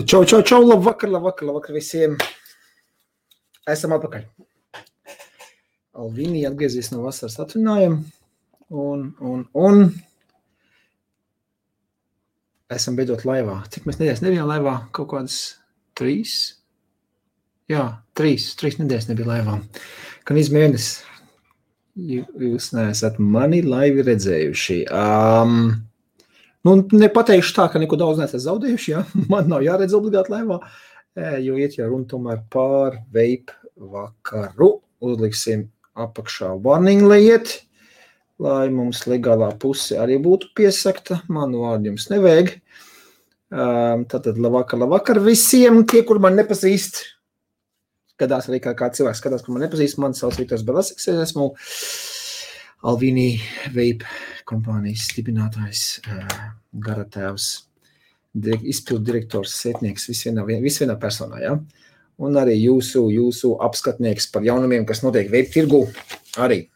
Čau, labvakar visiem. Esam atpakaļ. Alvīni atgriezies no vasaras atvinājuma un esam beidzot laivā. Cik mēs nedēļas nebijām laivā? Kaut kādas 3? Jā, 3 nedēļas nebija laivā. Kad izmēnesis jūs neesat mani laivi redzējuši. Nepateikšu tā, ka neko daudz neesat zaudējuši, ja? Man nav jāredz obligāti laivā, jo iet jau runa tomēr pār vape vakaru. Uzliksim apakšā warning liet, lai mums legālā puse arī būtu piesakta. Manu vārdu jums nevajag. Tātad labvakar visiem, tie, kur man nepazīst. Skatās arī kā cilvēks skatās, kur man nepazīst. Man sauc Viktors Belasiks, es esmu Alvīni Vape kompānijas dibinātājs, garatēvs, izpildu direktors, sētnieks, visvienā personā, ja? Un arī jūsu apskatnieks par jaunumiem, kas notiek vape tirgu. Arī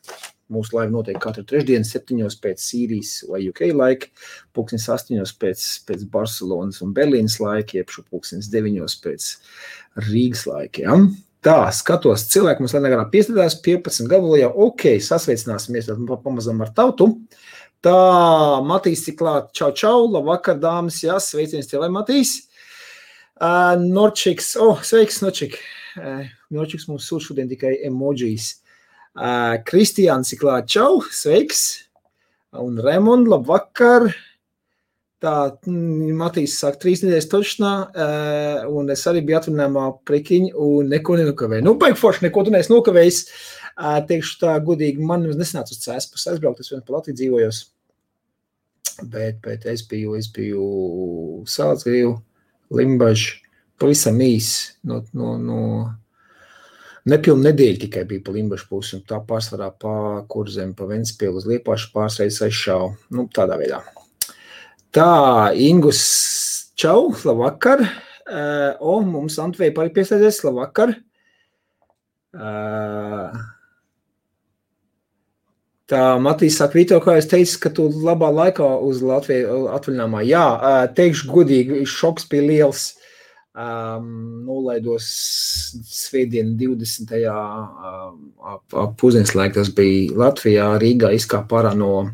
mūsu laiva notiek katru trešdienu 7 pēc Sīrijas vai UK laika, 8 pēc Barcelonas un Berlīnas laika, jeb 9 pēc Rīgas laika, ja? Tā, skatos, cilvēki mums negarā piestādās 15 gabalu jau, sasveicināsimies pamazam ar tautu. Tā, Matīs ir klāt, čau, labvakar, dāmas, jā, sveiciens tev, Matīs. Norčiks, sveiks, Norčik. Norčiks mums sūta šodien tikai emojijas. Kristiāns ir klāt, čau, sveiks. Un Remond, labvakar. Tā, Matīs sāk 3 nedēļas točnā, un es arī biju atvinājumā prekiņu un neko nenokavēju. Baigi forši, neko tu neesi nokavējis. Teikšu tā godīgi, man nesanāca uz Cēspas aizbraukt, es vien pa Latviju dzīvojos. Bet es biju Sālsgrīvu, Limbažu, pavisam īs, no nepilnu nedēļu tikai bija pa Limbažu pusi, un tā pārsvarā pa Kurzemi, pa Ventspielu uz Liepāšu pārsreiz aizšāvu, tādā veidā. Tā, Ingus, čau, labvakar. Mums Antveja arī pieslēdzies, labvakar. Tā, Matīs saka, Vito, kā es teicu, ka tu labā laikā uz Latviju atvaļinājumā. Jā, teikšu godīgi, šoks bija liels. Nolaidos svētdien 20. Pusdienas laika, tas bija Latvijā, Rīgā izkāpa ārā no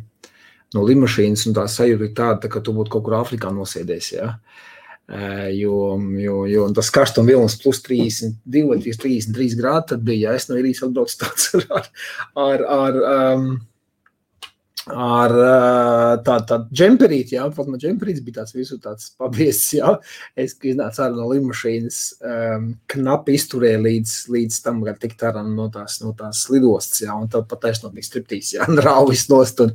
limašīnas, un tā sajūta ir tāda, ka tu būtu kaut kur Āfrikā nosēdies, ja? Jo tas karstuma vilnis plus 32 vai 33 grādi, tad bija, ja es no Irijas atbraucu tāds ar tādu džemperīti, ja? Pat man džemperīts bija tāds visu tāds pabiezs, ja? Es iznācu ārā no limašīnas, knapi izturēju līdz tam, kad tikt ārā no tās lidostas, ja? Un tad pat taisnot bija striptīs, ja? Rauvis nost un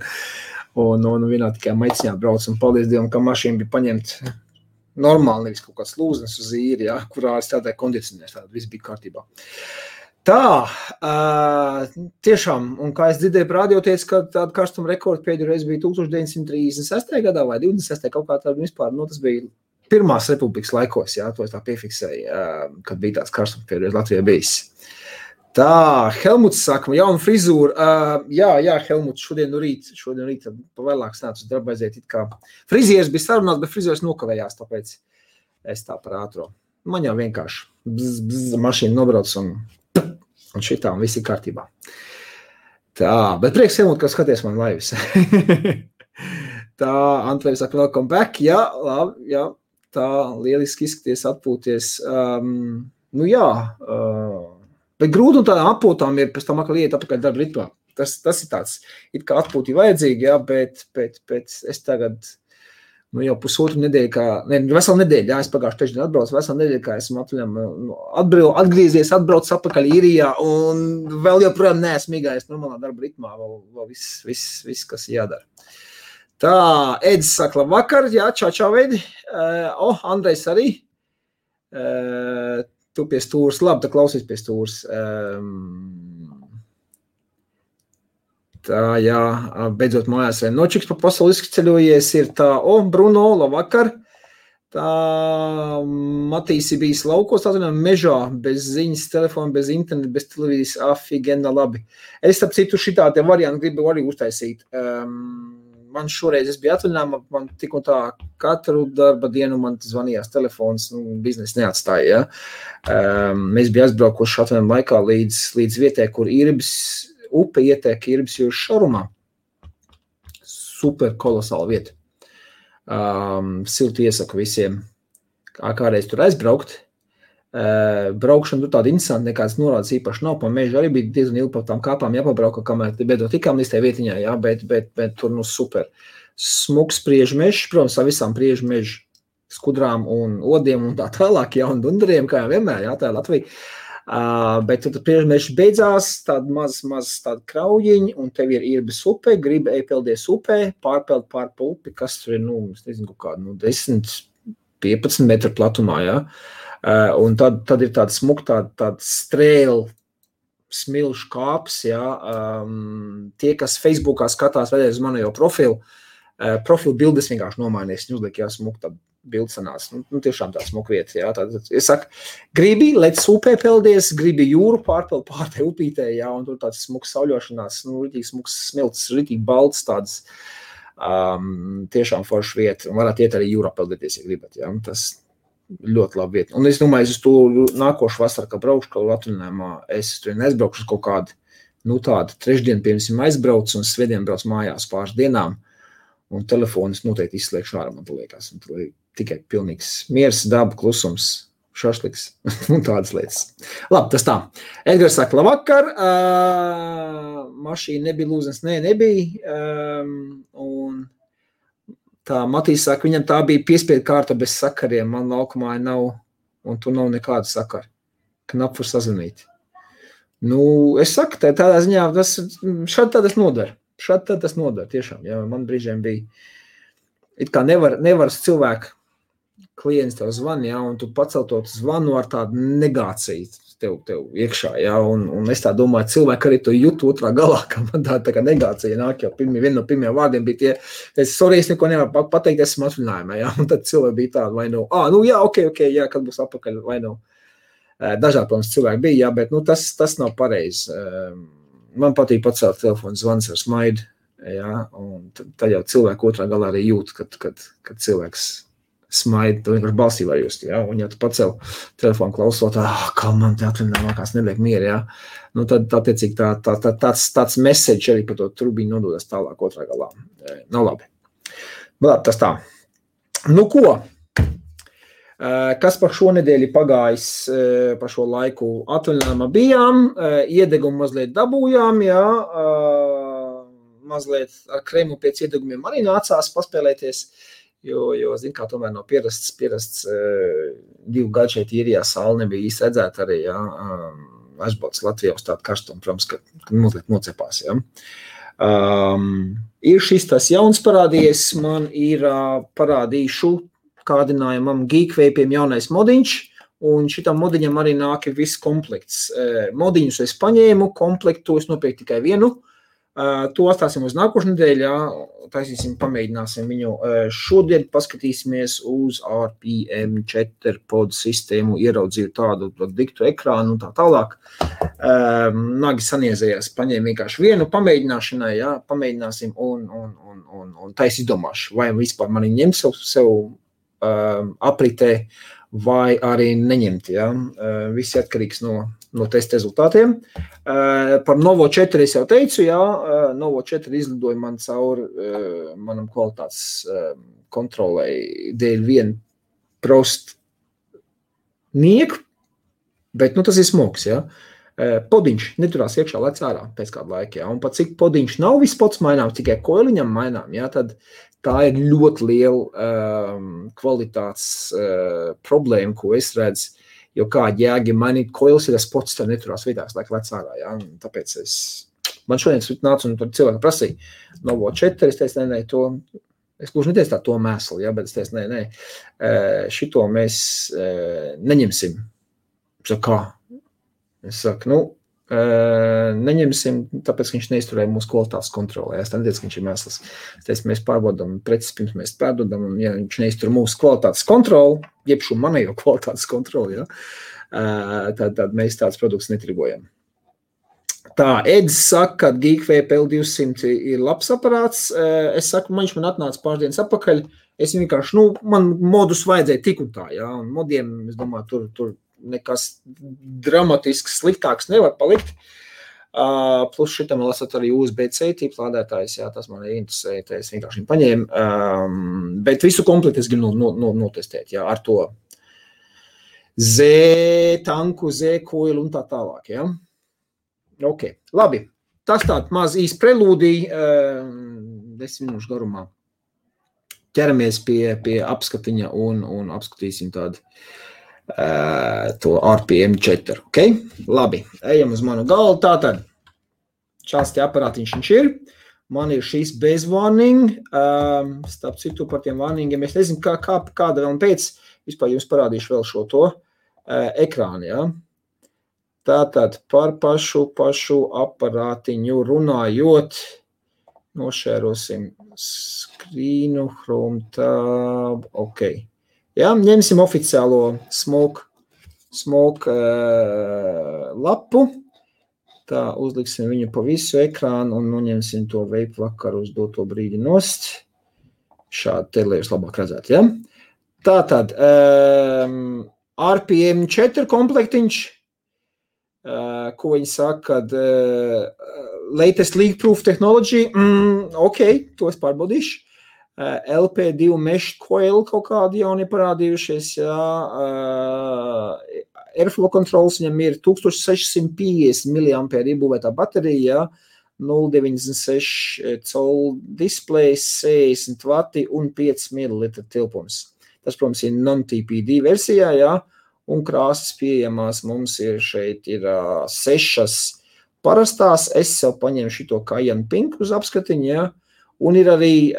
vienā tikai maiciņā brauc, un paldies Dievam, ka mašīna bija paņemt normāli, nevis kaut kāds lūznes uz īri, ja, kurā es tādai kondicionēs, tāda viss bija kārtībā. Tā, tiešām, un kā es dzirdēju par radio teicu, ka tāda karstuma rekorda pēdējo reizi bija 1936. Gadā vai 26. kaut kā tāda vispār, tas bija Pirmās republikas laikos, ja, to es tā piefiksēju, kad bija tāds karstums pēdējo reizi Latvijā bijis. Tā, Helmuts saka, jauna frizūra. Jā, Helmuts, šodien rīt pavēlāk sanāca uz darbu aiziet. Frizieris bija sarunās, bet frizieris nokavējās, tāpēc es tā par ātro. Man jau vienkārši mašīna nobrauc un šitā, un viss ir kārtībā. Tā, bet prieks, Helmut, ka skaties man laivas. Tā, Antveja saka, welcome back. Jā, labi, jā, tā, lieliski izskaties, atpūties. Bet grūti un tādām atpūtām ir pēc tam atkal iet apakaļ darba ritmā. Tas ir tāds, it kā atpūti vajadzīgi, jā, bet es tagad, jau pusotru nedēļu, veselu nedēļu, jā, es pagājuši trešdien atbraucu, veselu nedēļu, kā esmu atgriezies, atbrauc apakaļ Īrijā, un vēl joprojām neesmu migājis normālā darba ritmā, vēl viss, kas jādara. Tā, Edis saka, labvakar, jā, čau, Edi. Andrejs arī. Tu pie stūras, labi, tā klausīs pie stūras. Tā, jā, beidzot mājās. Nočiks pa pasauli izceļojies ir tā, Bruno, labvakar. Tā, Matīsi bijis laukos, tā mežā, bez ziņas, telefona, bez interneta, bez televīzijas, afigena, labi. Es, starp citu, šitā te variantu gribu arī uztaisīt. man šoreiz es biju atvaļinājumā, man tik un tā katru darba dienu man zvanījās telefons, biznesa neatstāja, ja. Mēs bija aizbraukuši atvaļinājuma laikā līdz vietai, kur Irbis upe ietek Irbis jūras šarumā. Super kolosāla vieta. Silti iesaku visiem, kādreiz tur aizbraukt. Braukšana tur tāda interesanta, nekāds norādes īpaši nav, pa mežu arī bija diezgan ilgi pa tām kāpām jāpabrauka, kamēr beidzot tikām līdz tai vietiņā, jā, bet tur super. Smuks priežu mežs, protams, ar visām priežu mežu skudrām un odiem un tā tālāk, jā, un dundariem, kā jau vienmēr, jā, tā ir Latvija. Bet tur priežu mežs beidzās, tāda maz tāda kraujiņa, un tev ir Irbis upe, gribi peldies upē, pārpeld pārpa upi, kas tur ir, es nezinu, kādu, 10-15 metru platumā, jā. Un tad ir tāda smuka, tāda strēla smilšu kāps, jā. Tie, kas Facebookā skatās vēlreiz uz manu jau profilu bildes vienkārši nomainīs, viņi uzliek, jā, smuka tāda bilde sanās. Tiešām tā smuka vieta, jā. Tad, es saku, gribi, lec upē peldies, gribi jūru pārpeld pārtai upītē, jā, un tur tāds smuks sauļošanās, ritīgi smuks smilts, ritīgi balts tāds, tiešām forša vieta, un varētu iet arī jūrā peldēties, ja gribat, jā, tas ļoti labi vieta. Un es domāju, es to nākošu vasaru, kā braukšu, kā atvaļinājumā, es tur neaizbraukšu uz kaut kādu, tādu trešdienu, piemēram, aizbraucu un svētdien brauc mājās pāris dienām, un telefonus noteikti izslēgšu ārā, man liekas, un tur tikai pilnīgs miers, daba, klusums, šašliks, un tādas lietas. Labi, tas tā. Edgars saka, labvakar, mašīna nebija lūzens, nebija, un tā Matīs saka, viņam tā bija piespiedu kārta bez sakariem, man laukumā nav, un tur nav nekāda sakara. Knap var sazvanīt. Es saku, tādā ziņā, šādi tas nodara. Tiešām, jā, man brīžiem bija, it kā nevar cilvēku klients tev zvan, jā, un tu pacel zvanu ar tādu negāciju tev iekšā, jā, un es tā domāju, cilvēki arī to jūt otrā galā, ka man tā kā negācija nāk, jau viena no pirmajiem vārdiem bija tie, sorry, es neko nevaru pateikt, esmu atvaļinājumā, jā, un tad cilvēki bija tādi, vai jā, ok, jā, kad būs apakaļ, vai dažādi, protams, cilvēki bija, jā, bet, tas nav pareizi. Man patīk pacelt telefonu zvans ar smaidu, jā, un tad jau cilvēku otrā galā arī jūt, kad cilvēks smaida, tu vienkārši balsī var just, jā, un ja tu pacel telefonu klausot, kā man te atvaļinājumā kās neliek mieru, jā, tad attiecīgi tāds message arī par to trubiņu nododas tālāk otrā galā. Nav labi. Bet tas tā. Ko? Kas par šo nedēļu pagājis, par šo laiku atvaļinājumā bijām, iedegumu mazliet dabūjām, jā, mazliet ar krēmu pēc iedegumiem arī nācās paspēlēties, jo zin kā, tomēr nav pierasts 2 gadu šeit īrijā saule nebija īsti redzēta arī, jā, aizbaudas Latvijā uz tādu karstumu, protams, ka mazliet nocepās, jā. Ir šis tas jauns parādījies, man ir parādīšu kādinājumam Geekvapiem jaunais modiņš, un šitam modiņam arī nāk viss komplekts. Modiņus es paņēmu, komplektu es nopirku tikai vienu, to atstāsim uz nākošu nedēļu, jā, taisīsim, pamēģināsim viņu. Šodien paskatīsimies uz RPM4 pod sistēmu, ieraudzīju tādu diktu ekrānu un tā tālāk. Nagi saniezējās, paņēmu vienkārši vienu pamēģināšanai, jā, pamēģināsim un tais izdomāšu, vai vispār mani ņemt sev apritē, vai arī neņemt, jā. Viss atkarīgs no testa rezultātiem. Par Novo 4 es jau teicu, jā, Novo 4 izlidoja man cauri manam kvalitātes kontrolei dēļ vienu prost nieku, bet, tas ir smogs, jā. Podiņš neturās iekšā, lec ārā pēc kādu laiku, jā, un pat cik podiņš nav viss pods mainām, tikai koiliņam mainām, jā, tad tā ir ļoti liela kvalitātes problēma, ko es redzu, jo kādi jēgi mainīt koilis, ja tas pods tā neturās vietās, laik lec ārā, jā, un tāpēc man šodien nāca un tur cilvēki prasīja Novo 4, es teicu, nē, to, es gluži neteicu tā to mēslu, jā, bet es teicu, nē, šito mēs neņemsim. Saku, kā? Es saku, neņemsim, tāpēc, ka viņš neizturēja mūsu kvalitātes kontrolē. Es neteicu, ka viņš ir mēsls. Es teicu, mēs pārbaudām preces, pirms mēs pārdodam, un ja viņš neiztur mūsu kvalitātes kontroli, jeb šo manējo kvalitātes kontroli, ja, tad mēs tāds produkts netirgojam. Tā, Edis saka, ka Geekway PL200 ir labs aparāts. Es saku, man atnāca pāris dienas atpakaļ. Es vienkārši, man modus vajadzēja tik un tā, jā. Un modiem, es domāju, tur nekas dramatisks sliktāks nevar palikt. Plus šitam lasat arī USB-C tīpa lādētājs, jā, tas man interesēja, tā es vienkārši viņu paņēmu. Bet visu komplektu es gribu notestēt, jā, ar to Z-tanku, Z-koilu un tā tālāk, jā. Ok, labi. Tas tāds maz īs prelūdija 10 minūšu garumā. Ķeramies pie apskatiņa un apskatīsim tādu to RPM 4, ok? Labi, ejam uz manu galvu. Tātad, šāds te aparātiņš viņš ir. Man ir šīs bez warning. Starp citu par tiem warningiem. Es nezinu, kāda vēl un pēc. Vispār jums parādīšu vēl šo to ekrānu, jā. Tātad par pašu aparātiņu runājot, nošērosim skrīnu, Chrome tab, ok. Jā, ņemsim oficiālo smoke lapu, tā uzliksim viņu pa visu ekrānu un noņemsim to vape vakaru uz doto brīdi nost. Šādi te, lai jūs labāk redzētu, jā. Tātad, RPM 4 komplektiņš, ko viņi saka, kad latest leak-proof technology, ok, to es pārbaudīšu. LP2 mesh coil kaut kādi jauni parādījušies, jā. Airflow controls viņam ir 1650 mAh iebūvētā baterija, jā. 0,96 col displays, 60 vati un 5 ml tilpums. Tas, protams, ir non-TPD versijā, jā. Un krāsas pieejamās mums ir šeit ir 6 parastās. Es sev paņēmu šito Cayenne Pink uz apskatiņu, jā. Un ir arī,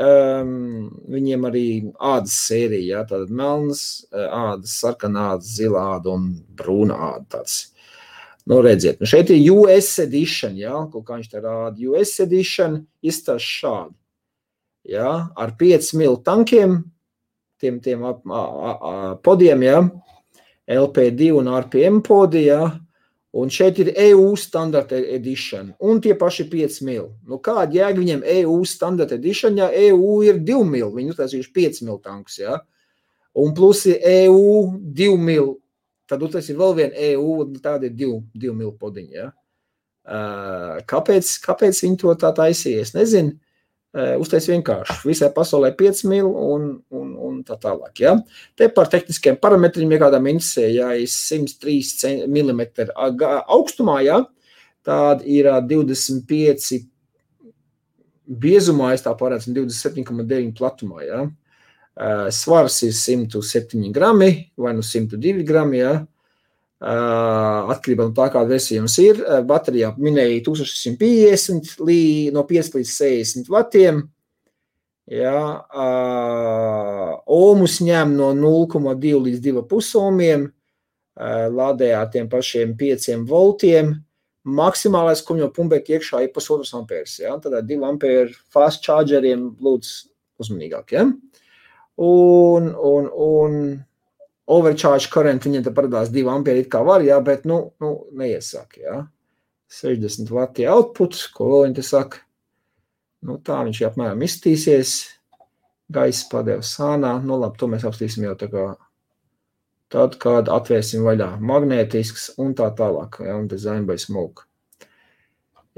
viņiem arī ādas sērija, jā. Tātad melnas ādas, sarkana ādas, zila āda un brūna āda tāds. Redziet, šeit ir US edition, jā. Kaut kā viņš te rāda. US edition izstāst šādi, jā. Ar 5 mil tankiem, tiem podiem, jā. LP2 un RPM podi, jā, un šeit ir EU standard edition, un tie paši 5 mil. Kāda jēga viņiem EU standard edition, ja EU ir 2 mil, viņi uztaisījuši 5 mil tankus, jā, un plus ir EU 2 mil, tad tas ir vēl vien EU, un tāda ir 2 mil podiņa, jā. Kāpēc viņi to tā taisīja, es nezinu. Uztais vienkārši. Visai pasaulē 5 mil un tā tālāk, jā. Te par tehniskiem parametriem, ja kādām interesē, jā, ir 103 mm augstumā, jā. Tāda ir 25 biezumā, es tā parādu, 27,9 platumā, jā. Svars ir 107 grami vai 102 grami, jā. Atkarībā no tā, kāda versija jums ir. Baterijā minēja 1650 no 5 līdz 60 vatiem. Jā, ohmus ņem no 0,2 līdz 2,5 ohmiem. Lādējā tiem pašiem 5 voltiem. Maksimālais, ko viņam pumpēt iekšā, ir 1,5 ampērs. Jā, tad 2 ampēru fast chargeriem lūdzu uzmanīgāk. Jā. Un overcharge current, viņiem te parādās 2 ampēri it kā var, jā, bet, neiesāk, jā. 60 vati output, ko vēl viņi te saka. Tā viņš apmēram izstīsies. Gaisa padeva sānā. Labi, to mēs apstīsim jau tā kā tad, kad atvērsim vaļā magnētisks un tā tālāk, jā, un design by smoke.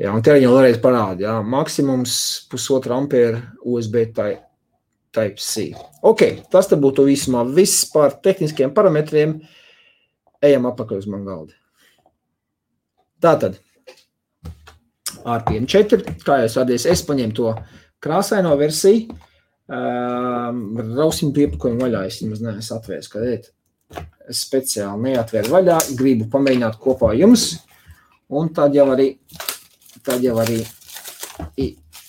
Jā, un te viņi vēlreiz parāda, jā, maksimums 1,5 ampēra USB Type-C. Ok, tas te būtu vismā viss par tehniskiem parametriem. Ejam apakaļ uz man galdi. Tātad, RPM 4, kā jūs radies, es paņēmu to krāsaino versiju. Rausim piepakojumu vaļā, es nemaz neesmu atvērs, kad ēt. Es speciāli neatvēru vaļā, gribu pamēģināt kopā jums. Un tad jau arī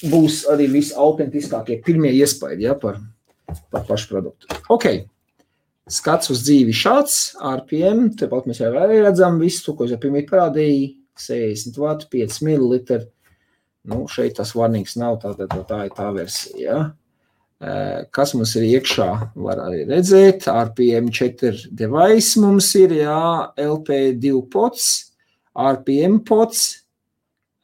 būs arī visautentiskākie pirmie iespaidi, ja, par pašu produktu. Ok, skats uz dzīvi šāds, RPM, tepat mēs jau arī redzam visu, ko es jau pirmīt parādīju, 60 vatu, 5 ml, šeit tas warnings nav, tā ir tā versija, ja. Kas mums ir iekšā, var arī redzēt, RPM 4 device mums ir, jā, LP2 pods, RPM pods,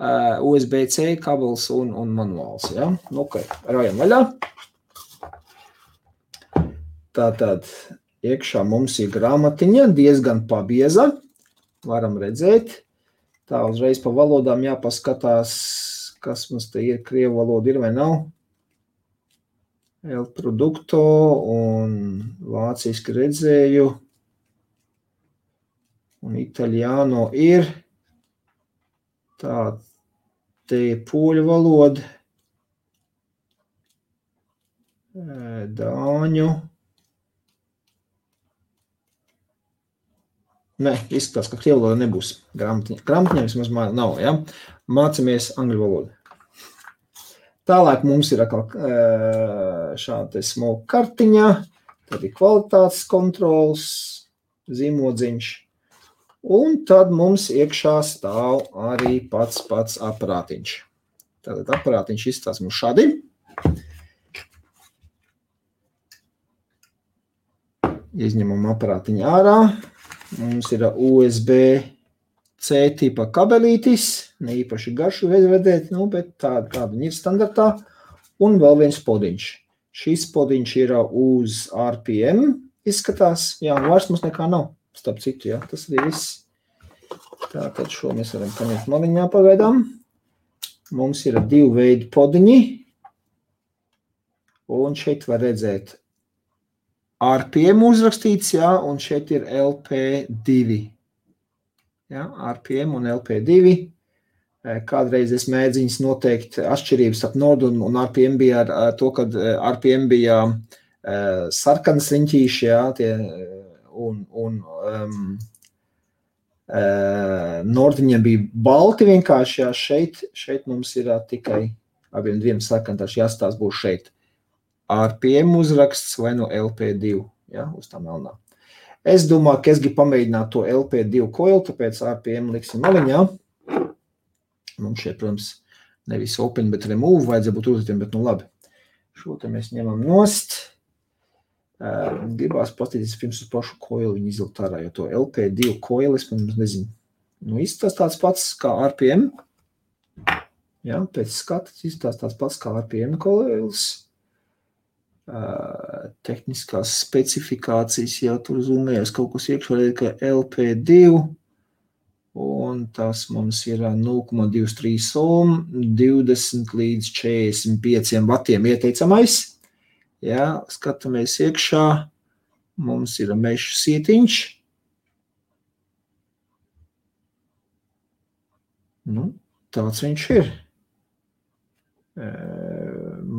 USB-C kabels un manuāls, ja? Nu, ok, rājam vaļā. Tātad iekšā mums ir grāmatiņa, diezgan pabieza, varam redzēt. Tā uzreiz pa valodām jāpaskatās, kas mums te ir, krievu valoda ir vai nav. El Producto un vāciski redzēju. Un Italiano ir. Tā, te ir poļu valoda. Dāņu. Nē, izskatās, ka krievu valoda nebūs. Grāmatiņa vismaz nav, ja? Mācamies angļu valodu. Tālāk mums ir šāda smoka kartiņa, tad ir kvalitātes kontrols, zīmodziņš, un tad mums iekšā stāv arī pats aparātiņš. Tātad aparātiņš izstās mums šādi. Izņemam aparātiņu ārā. Mums ir USB-C tipa kabelītis, ne īpaši garšu vedēt, nu, bet tāda viņa ir standartā. Un vēl viens podiņš. Šis podiņš ir uz RPM izskatās. Jā, un vairs mums nekā nav, starp citu, jā, tas arī viss. Tātad šo mēs varam paņemt maliņā pagaidām. Mums ir 2 veidi podiņi. Un šeit var redzēt RPM uzrakstīts, jā, un šeit ir LP2. Jā, RPM un LP2. Kādreiz es mēģiņas noteikt atšķirības ap Nord un RPM bija ar to, kad RPM bija sarkanas riņķīši, jā, tie, un Nordiņiem bija balti vienkārši, jā, šeit mums ir tikai abiem diviem sarkantāši jāstās būs šeit. RPM uzraksts vai no LP2, ja, uz tā melnā. Es domāju, ka es gribu pamēģināt to LP2 coil, tāpēc RPM liksim maliņā. Mums šeit, protams, nevis open, bet remove, vajadzēja būt uzlietiem, bet nu labi. Šo te mēs ņemam nost. Gribās paskatīties pirms uz pašu coil viņu izlikt ārā, jo to LP2 coil, es nezinu, nu izstās tāds pats kā RPM. Ja, pēc skatas izstās tāds pats kā RPM coils. Tehniskās specifikācijas jau tur zumējas kaut kas iekšā, ka LP2 un tas mums ir 0,23 ohm, 20 līdz 45 vatiem ieteicamais. Ja, skatāmies iekšā, mums ir mešu sietiņš. Nu, tāds viņš ir.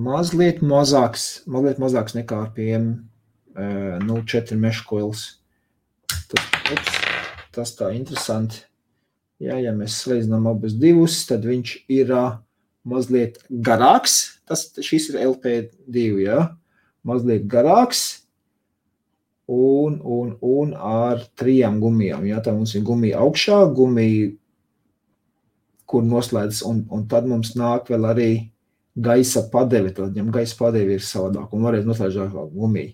Mazliet mazāks nekā RPM 0,4 mesh coils. Tas tā interesanti. Ja mēs salīdzinām abus divus, tad viņš ir mazliet garāks. Šis ir LP2, ja? Mazliet garāks un ar 3 gumijām. Ja? Tā mums ir gumija augšā, gumija, kur noslēdz, un tad mums nāk vēl arī gaisa padevi, tad viņam gaisa padevi ir savādāk un varēs noslēdzt gumiju.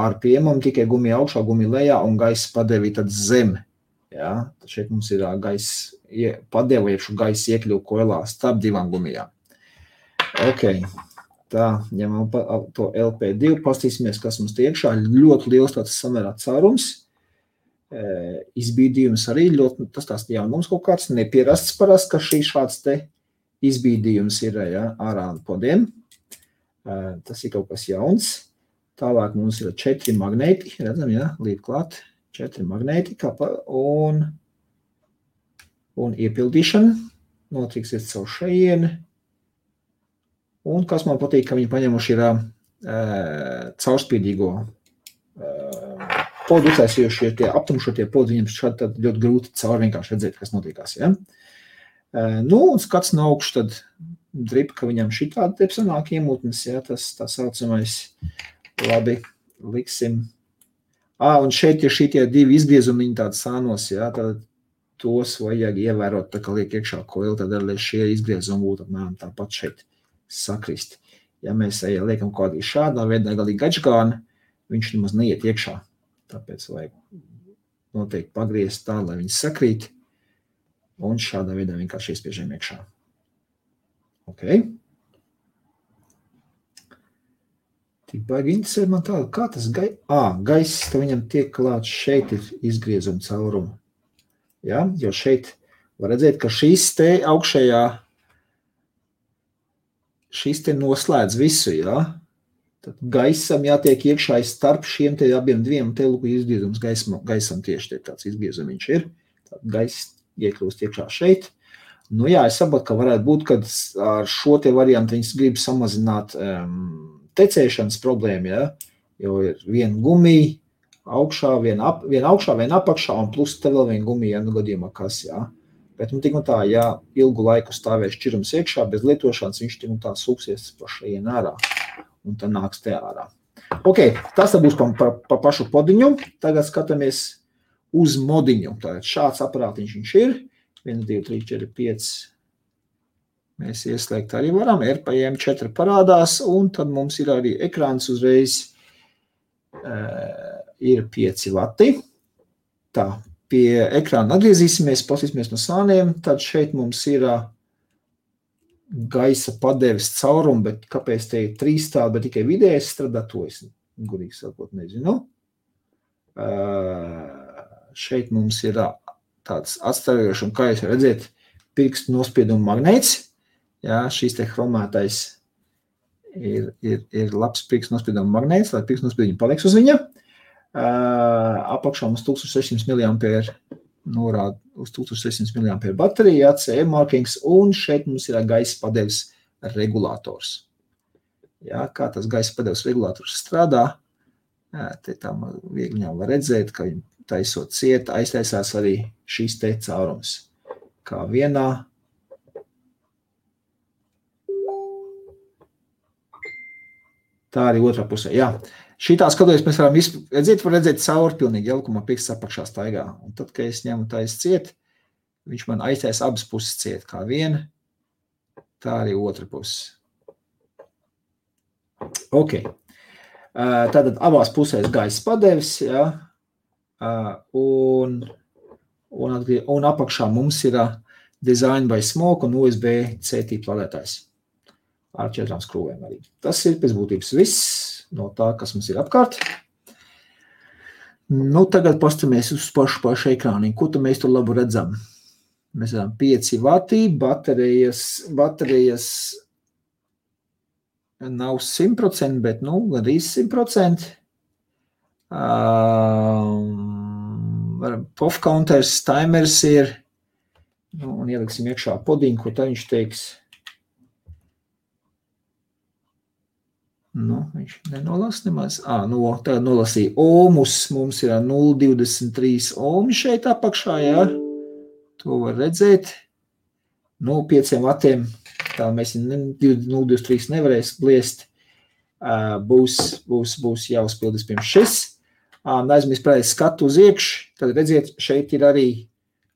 RPM-am tikai gumija augšā, gumija lejā un gaisa padevi tad zem. Ja? Tad šeit mums ir gaisa padevi, iekšu gaisa iekļuvu koilā starp 2 gumijām. Ok, tā, ņemam to LP2, pastīsimies, kas mums tie iekšā. Ļoti liels tāds samērā caurums. Izbīdījums arī ļoti, tas tās jaunums kaut kāds, nepierasts parasti, ka šī šāds te izbīdījums ir, ja, ārā podiem. Tas ir kaut kas jauns. Tālāk mums ir 4 magnēti, redzam, ja, līdz klāt 4 magnēti un iepildīšana. Notiksies caur šajieni. Un kas man patīk, ka viņi paņemuši ir caurspīdīgo podu uztaisījuši, tie aptumšotie podi, viņiem šādi tad ļoti grūti caur vienkārši redzēt, kas notiekās, ja. Nu, un skats no augšu, tad drip, ka viņam šitādi te sanāk iemūtnes, ja, tas tā saucamais, labi, liksim. Un šeit ir šitie 2 izgriezumiņi tādi sānos, ja, tad tos vajag ievērot, tā kā liek iekšā koili, tad arī šie izgriezumi būtu apmēram tāpat šeit sakrist. Ja mēs liekam kaut kādī šādā veidā galīgi gačgāni, viņš nemaz neiet iekšā. Tāpēc vajag noteikti pagriezt tā, lai viņi sakrīt. Un šādā veidā vienkārši iespiežam iekšā. Ok. Tik baigi interesē man tādu, kā tas gaiss, ka viņam tiek klāts šeit ir izgriezuma caurumu. Ja? Jo šeit var redzēt, ka šis te augšējā, šis te noslēdz visu, ja? Tad gaisam jātiek iekšā starp šiem te abiem diviem, te lūk izgriezums gaisam tieši te tāds izgriezumiņš ir. Tad gaiss iekļūst iekšā šeit. Nu jā, es saprotu, ka varētu būt, kad ar šo te variantu viņas grib samazināt tecēšanas problēmu, ja? Jo ir viena gumija augšā, viena augšā, viena apakšā, un plus te vēl viena gumija, ja nu gadījumā kas, jā. Bet tik un tā, ja ilgu laiku stāvēs šķirums iekšā, bez lietošanas, viņš tik un tā sūksies pa šajien ārā, un tad nāks te ārā. Ok, tas būs pa pašu podiņu. Tagad skatāmies uz modiņu. Tātad šāds aparātiņš viņš ir. 1, 2, 3, 4, 5. Mēs ieslēgt arī varam. RPM 4 parādās, un tad mums ir arī ekrāns uzreiz ir 5 vati. Tā, pie ekrāna atgriezīsimies, pasīsimies no sāniem. Tad šeit mums ir gaisa padeves caurumu, bet kāpēc te ir 3 tādi, bet tikai vidējais strādā, to es gudīgi sakot nezinu. Šeit mums ir tāds atstājošs, un kā jūs redzēt, pirkstu nospiedumu magnēts. Jā, šīs te chromētais ir labs pirkstu nospiedumu magnēts, lai pirkstu nospiedumu paliks uz viņa. Apakšā mums 1600 mAh norāda uz 1600 mAh baterija, CE markings, un šeit mums ir gaisa padeves regulators. Jā, kā tas gaisa padeves regulators strādā, te tā viegli jau var redzēt, ka taisot ciet, aiztaisās arī šīs te caurums. Kā vienā. Tā arī otrā pusē. Jā. Šitā skatoties, mēs varam redzēt cauri pilnīgi jaukumā pirksts apakšā staigā. Un tad, kad es ņemu tais ciet, viņš man aiztais abas puses ciet. Kā viena, tā arī otra puses. Ok. Tātad abās pusēs gaisa padevis, jā. Un apakšā mums ir Design by Smoke un USB-C tīpa ladētājs ar 4 skrūvēm arī. Tas ir pēc būtības viss no tā, kas mums ir apkārt. Nu, tagad pastamies uz pašu ekrāniņu. Ko tu mēs tur labu redzam? Mēs redzam 5 vati, baterijas nav 100%, bet, nu, gandrīz 100%. POF counters, timers ir, nu, un ieliksim iekšā podiņu, ko tā viņš teiks. Nu, viņš nenolas nemaz. Tagad nolasīja ohmus, mums ir 0,23 ohmi šeit apakšā, jā. To var redzēt. Nu, 5 vatiem, tā mēs 0,23 nevarēs bliest. Būs jāuzpildīs pirms šis. Aizmirst pēc skatu uz iekšu, tad redziet, šeit ir arī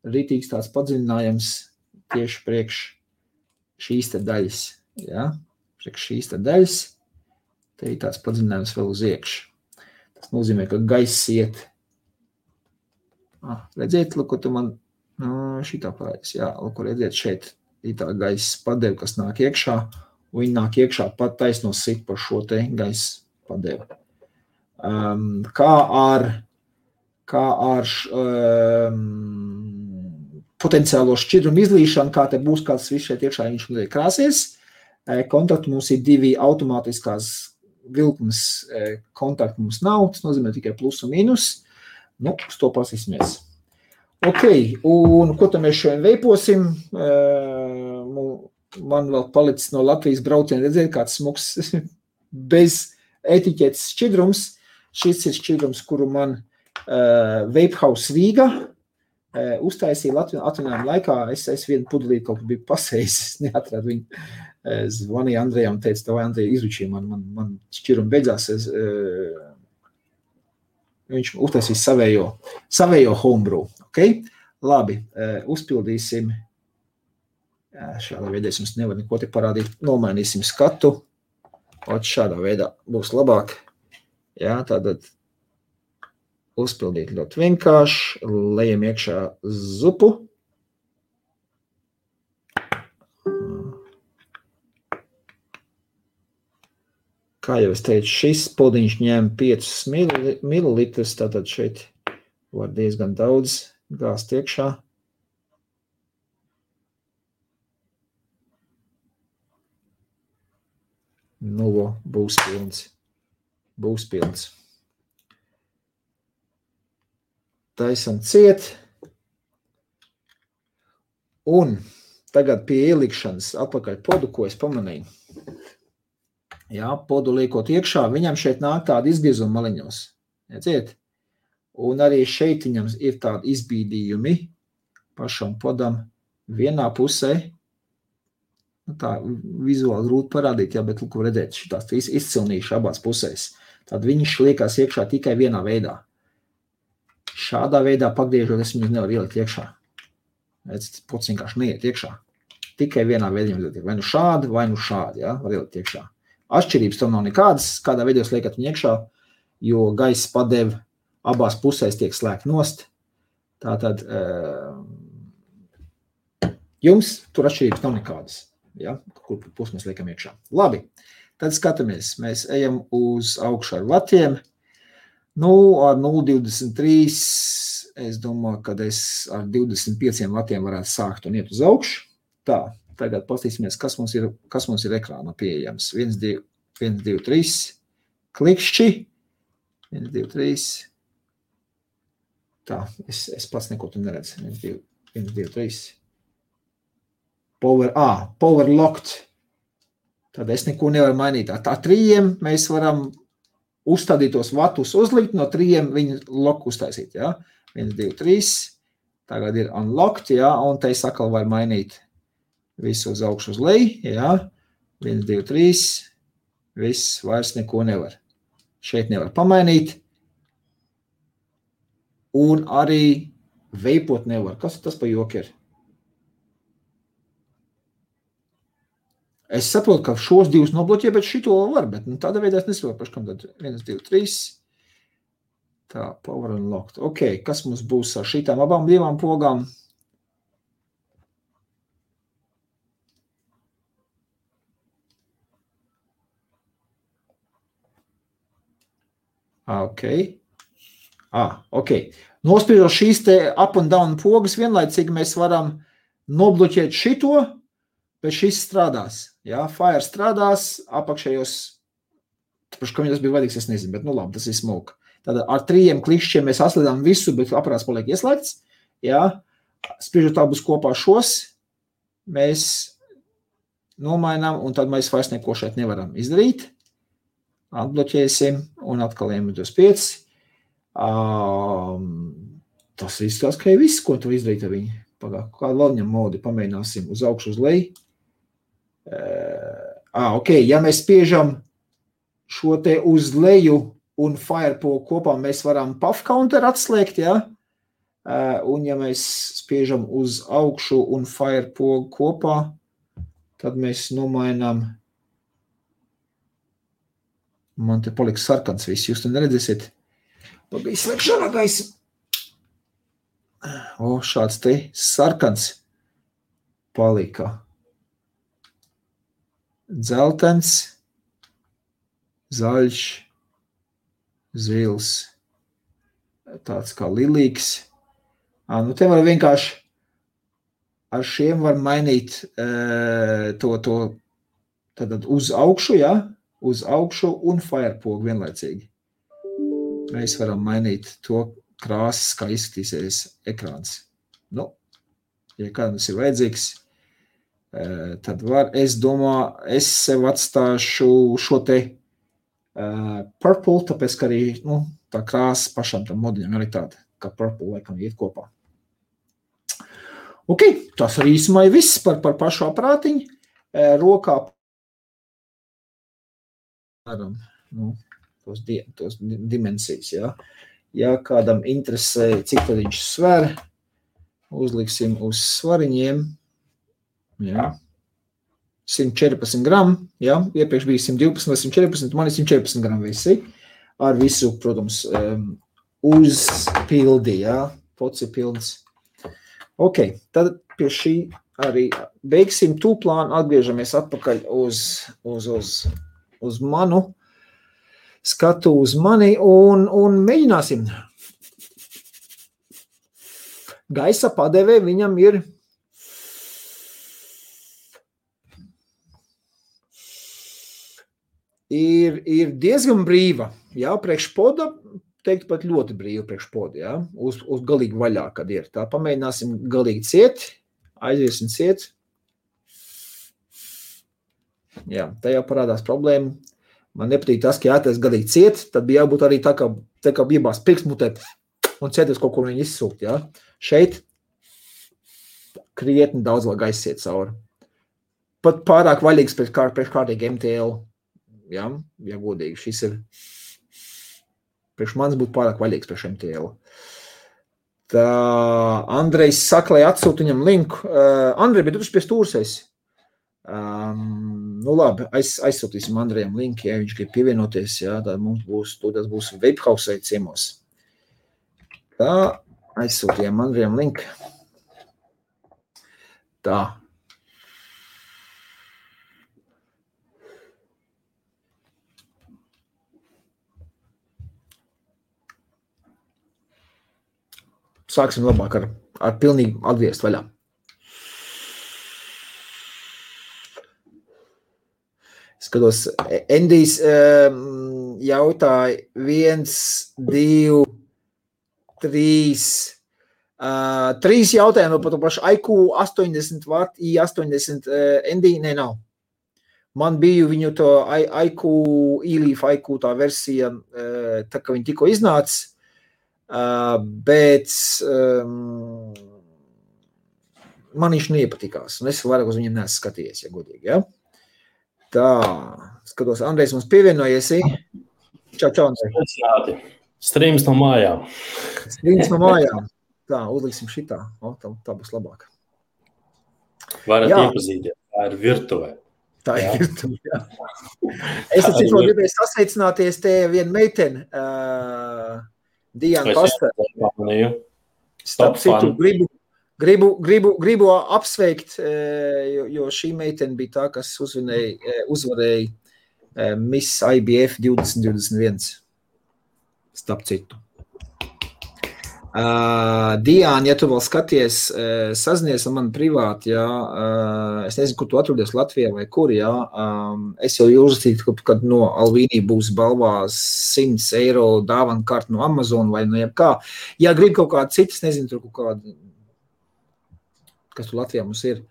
ritīgs tāds padziļinājums tieši priekš šīs te daļas. Ja? Priekš šīs te daļas, te ir tāds padziļinājums vēl uz iekšu. Tas nozīmē, ka gaiss iet. Redziet, lūk, tu man šitā parādīs. Jā, lūk, redziet, šeit ir tā gaisa padevi, kas nāk iekšā, un viņi nāk iekšā pat taisno sit par šo te gaisa padevi. Kā ar potenciālo šķidrumu izlīšanu, kā te būs kāds viss šeit iekšā, viņš krāsies. Kontakti mums ir 2 automātiskās vilkmes kontakti mums nav, tas nozīmē tikai plus un mīnus. Nu, uz to pasīsimies. Ok, un ko tad mēs šodien veiposim? Man vēl palicis no Latvijas brauciena redzēt kāds smuks bez etiķetes šķidrums. Šis ir šķidrums, kuru man Vape House Rīga uztaisīja atvinājuma laikā. Es vienu pudelīti kaut kā biju pasējis, es neatradu viņu. Zvanīja Andrejam un teica, tev Andreja izručīja, man šķidrumi beidzās. Viņš uztaisīs savējo homebrew. Okay? Labi, uzpildīsim. Šādā veidā es jums nevaru neko te parādīt. Nomainīsim skatu. Šādā veidā būs labāk. Jā, tātad uzpildīt ļoti vienkārši. Lejam iekšā zupu. Kā jau es teicu, šis podiņš ņem 5 mililitrus, tātad šeit var diezgan daudz gāzt iekšā. Nu, būs pilns. Būs pilns. Taisam ciet. Un tagad pie ielikšanas atpakaļ podu, ko es pamanīju. Jā, podu liekot iekšā, viņam šeit nāk tādi izgriezuma maliņos. Redziet? Un arī šeit viņam ir tādi izbīdījumi pašam podam vienā pusē. Nu, tā vizuāli grūti parādīt, jā, bet lūk, redzēt, šitās izcilnīši abās pusēs. Tad viņš liekās iekšā tikai vienā veidā. Šādā veidā pagriežot, es viņus nevaru ielikt iekšā. Redz, pods vienkārši neiet iekšā. Tikai vienā veidā vai nu šādi, jā, var ielikt iekšā. Atšķirības tam nav nekādas, kādā veidā jūs liekat viņu iekšā, jo gaisa padeve abās pusēs tiek slēgt nost. Tātad jums tur atšķirības nav nekādas, ja, kur pus mēs liekam iekšā. Labi, tad skatāmies, mēs ejam uz augšu ar vatiem. Nu, ar 0,23 es domāju, ka es ar 25 vatiem varētu sākt un iet uz augšu. Tā, tagad pastīsimies, kas mums ir ekrānā pieejams. 1, 2, 3, klikšķi. 1, 2, 3. Tā, es pats neko tu neredzu. 1, 2, 3. Power locked. Tad es neko nevaru mainīt. Tā 3 mēs varam uzstādītos vatus uzlikt, no 3 viņu loku uztaisīt, jā. 1, 2, 3. Tagad ir unlocked, jā, un te es atkal var mainīt visu uz augšu uz leju, jā. 1, 2, 3. Viss, vairs neko nevar. Šeit nevar pamainīt. Un arī veipot nevar. Kas tas pa joku ir? Es saprotu, ka šos divus nobloķē, bet šito var, bet nu, tādā veidā es nesaprotu, kam tad 1, 2, 3. Tā, power unlocked. Ok, kas mums būs ar šitām abām divām pogām? Ok. Nospiežot šīs te up un down pogas, vienlaicīgi mēs varam nobloķēt šito, bet šis strādās. Jā, fire strādās, apakšējos, kam tas bija vajadīgs, es nezinu, bet nu labi, tas ir smoke. Tad ar 3 klikšķiem mēs atslēdām visu, bet aparāts paliek ieslēgts. Jā, spiežot abus kopā šos, mēs nomainām, un tad mēs vairs neko šeit nevaram izdarīt. Atbloķēsim, un atkal ejam uz 5. Tas izskatās, ka ir viss, ko tu izdarīt ar viņu. Kādu vēl viņam modi pamēģināsim uz augšu uz leju. Ok, ja mēs spiežam šo te uz leju un firepogu kopā, mēs varam puff counter atslēgt, ja? Un ja mēs spiežam uz augšu un firepogu kopā, tad mēs nomainām. Man te paliks sarkans viss, jūs te neredzēsiet. Bija slēgšanā gaisa. Šāds te sarkans palika. Dzeltens, zaļš, zils, tāds kā lilīgs. Nu te var vienkārši ar šiem var mainīt to tad uz augšu, ja? Uz augšu un firepogu vienlaicīgi. Mēs varam mainīt to krāsas, kā izskatīsies ekrāns. Nu, ja kādam tas ir vajadzīgs, tad var, es domāju, es sev atstāšu šo te purple, tāpēc, ka arī tā krāsa pašam tam modiņam arī tāda, kā purple laikam iet kopā. Ok, tas arī īsumā ir viss par pašu aparātiņu. Rokā tos dimensijas, jā. Ja kādam interesē, cik tad viņš sver, uzliksim uz svariņiem, jā, 114 gramu, jā, iepriekš bija 112 vai 114, man ir 114 gramu visi, ar visu, protams, uzpildi, jā, pots ir pilns. Ok, tad pie šī arī beigsim tūplānu, atgriežamies atpakaļ uz manu skatu uz mani un mēģināsim. Gaisa padevē viņam ir diezgan brīva. Jā, priekš poda, teikt pat ļoti brīva priekš poda, jā, uz galīgi vaļā, kad ir. Tā pamēģināsim galīgi ciet, aiziesim ciet. Jā, tā jau parādās problēma. Man nepatīk tas, ka jātais galīgi ciet, tad bija jābūt arī tā kā bijās pirksmutē un cieties kaut ko viņi izsūkt, jā. Šeit krietni daudz vēl gaisa iet cauri. Pat pārāk vaļīgs priekš kārtīgi MTL. Ja godīgi, šis ir priekš manis būtu pārāk vaļīgs priekš MTL. Tā Andrejs saka, lai atsūt viņam linku. Andrej, bet tu pie stūras esi. Nu labi, aizsūtīsim Andrejam linku, ja viņš grib pievienoties, ja, tad mums būs Vapehouse ciemos. Tā, aizsūtījām Andrejam linku. Tā. Sāksim labāk ar pilnīgi atgriezt vaļā. Skatos, Endijs jautāja 1, 2, 3. 3 jautājumi par to pašu IQ 80 Watt, i80 Endij, nav. Man bija viņu to IQ, e-Leaf IQ tā versija, tā kā viņi tikko iznāca. Bet man viņš neiepatikās, un es vairāk uz viņiem neesmu skatījies, ja godīgi, ja? Tā, skatos, Andrejs mums pievienojies. Čau, Andrej. Streams no mājām. Tā, uzliksim šitā. Tā būs labāk. Varat iepazīties, tā ir virtuvē. Tā ir virtuvē, jā. Es cik vēl gribēju sasveicināties te vienu meiteni, Diana Pastāv. Starp citu, gribu apsveikt, jo šī meitene bija tā, kas uzvarēja Miss IBF 2021. Starp citu. Diana, ja tu vēl skaties, sazinies ar mani privāti, jā, es nezinu, kur tu atrodies Latvijā vai kur, jā, es jau uzrakstītu, kad no Alvīnī būs balvās 100 eiro dāvana karta no Amazon vai no jebkā. Ja grib kaut kādu citas, nezinu, tur kaut kādu, kas tur Latvijā mums ir,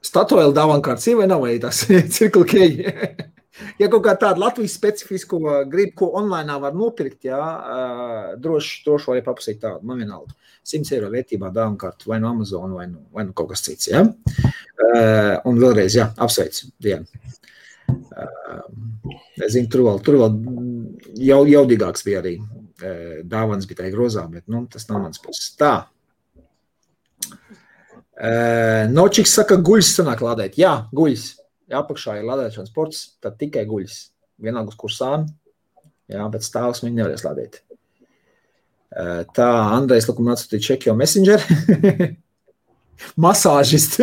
Statoil dāvana karts ir vai nav, vai tas Circle K? Ja kaut kā tādu Latvijas specifisku gribu, ko online var nopirkt, jā, droši var papasīt tādu, man vienalga. 100 eiro vērtībā dāvana kartu vai no Amazon vai no kaut kas cits, jā. Un vēlreiz, jā, apsveicu, Diana. Es zinu, tur vēl jaudīgāks bija arī. Dāvanas bija tā grozā, bet, tas nav mans puses. Tā. Nočiks saka, guļs sanāk lādēt. Jā, guļs. Ja apakšā ir lādēšanas ports, tad tikai guļas. Vienalga uz kursām, jā, bet stāvs viņi nevarēs lādēt. Tā, Andrejs Lakuma atsūtīja Čekio Messenger. Masāžist.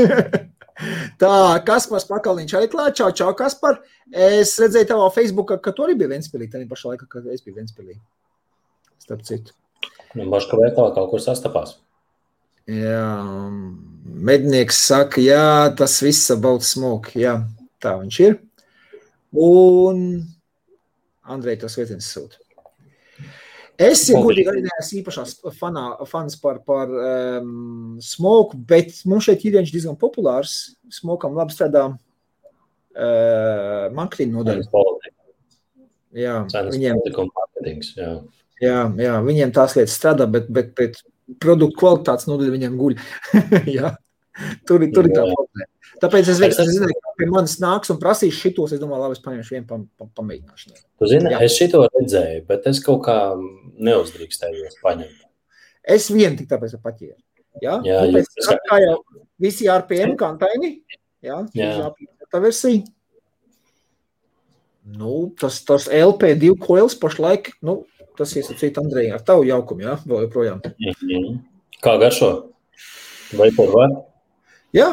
Tā, Kaspars Pakaliņš arī klāt. Čau, Kaspar. Es redzēju tavā Facebookā, ka tu arī bija Ventspilī, tā pašā laikā, kad es biju Ventspilī. Starp citu. Baška veikalā kaut kur sastapās. Jā, mednieks saka, jā, tas viss about smoke, jā, tā viņš ir. Un Andrej to sveiciens sūta. Es, ja godīgi, arī neesmu īpašās fans par smoke, bet mums šeit ir viņš diezgan populārs. Smokam labi strādā marketing nodaļa. Jā, viņiem tās lietas strādā, bet produktu kvalitātes nodaļa viņam guļ. Jā, tur ir tā problēma. Tāpēc es zinu, ka pie manis nāks un prasīs šitos, es domāju, labi, es paņemšu vienu pamēģināšanai. Tu zini, es šito redzēju, bet es kaut kā neuzdrīkstējos paņemt. Es vienu tik tāpēc paķēru. Jā, kā jau visi RPM kantaini, jā. Tā versija. Tas LP2 coils pašlaik, tas iesacīt Andreji ar tavu jaukumu, jā, vēl joprojām. Kā garšo? Vai par var? Jā,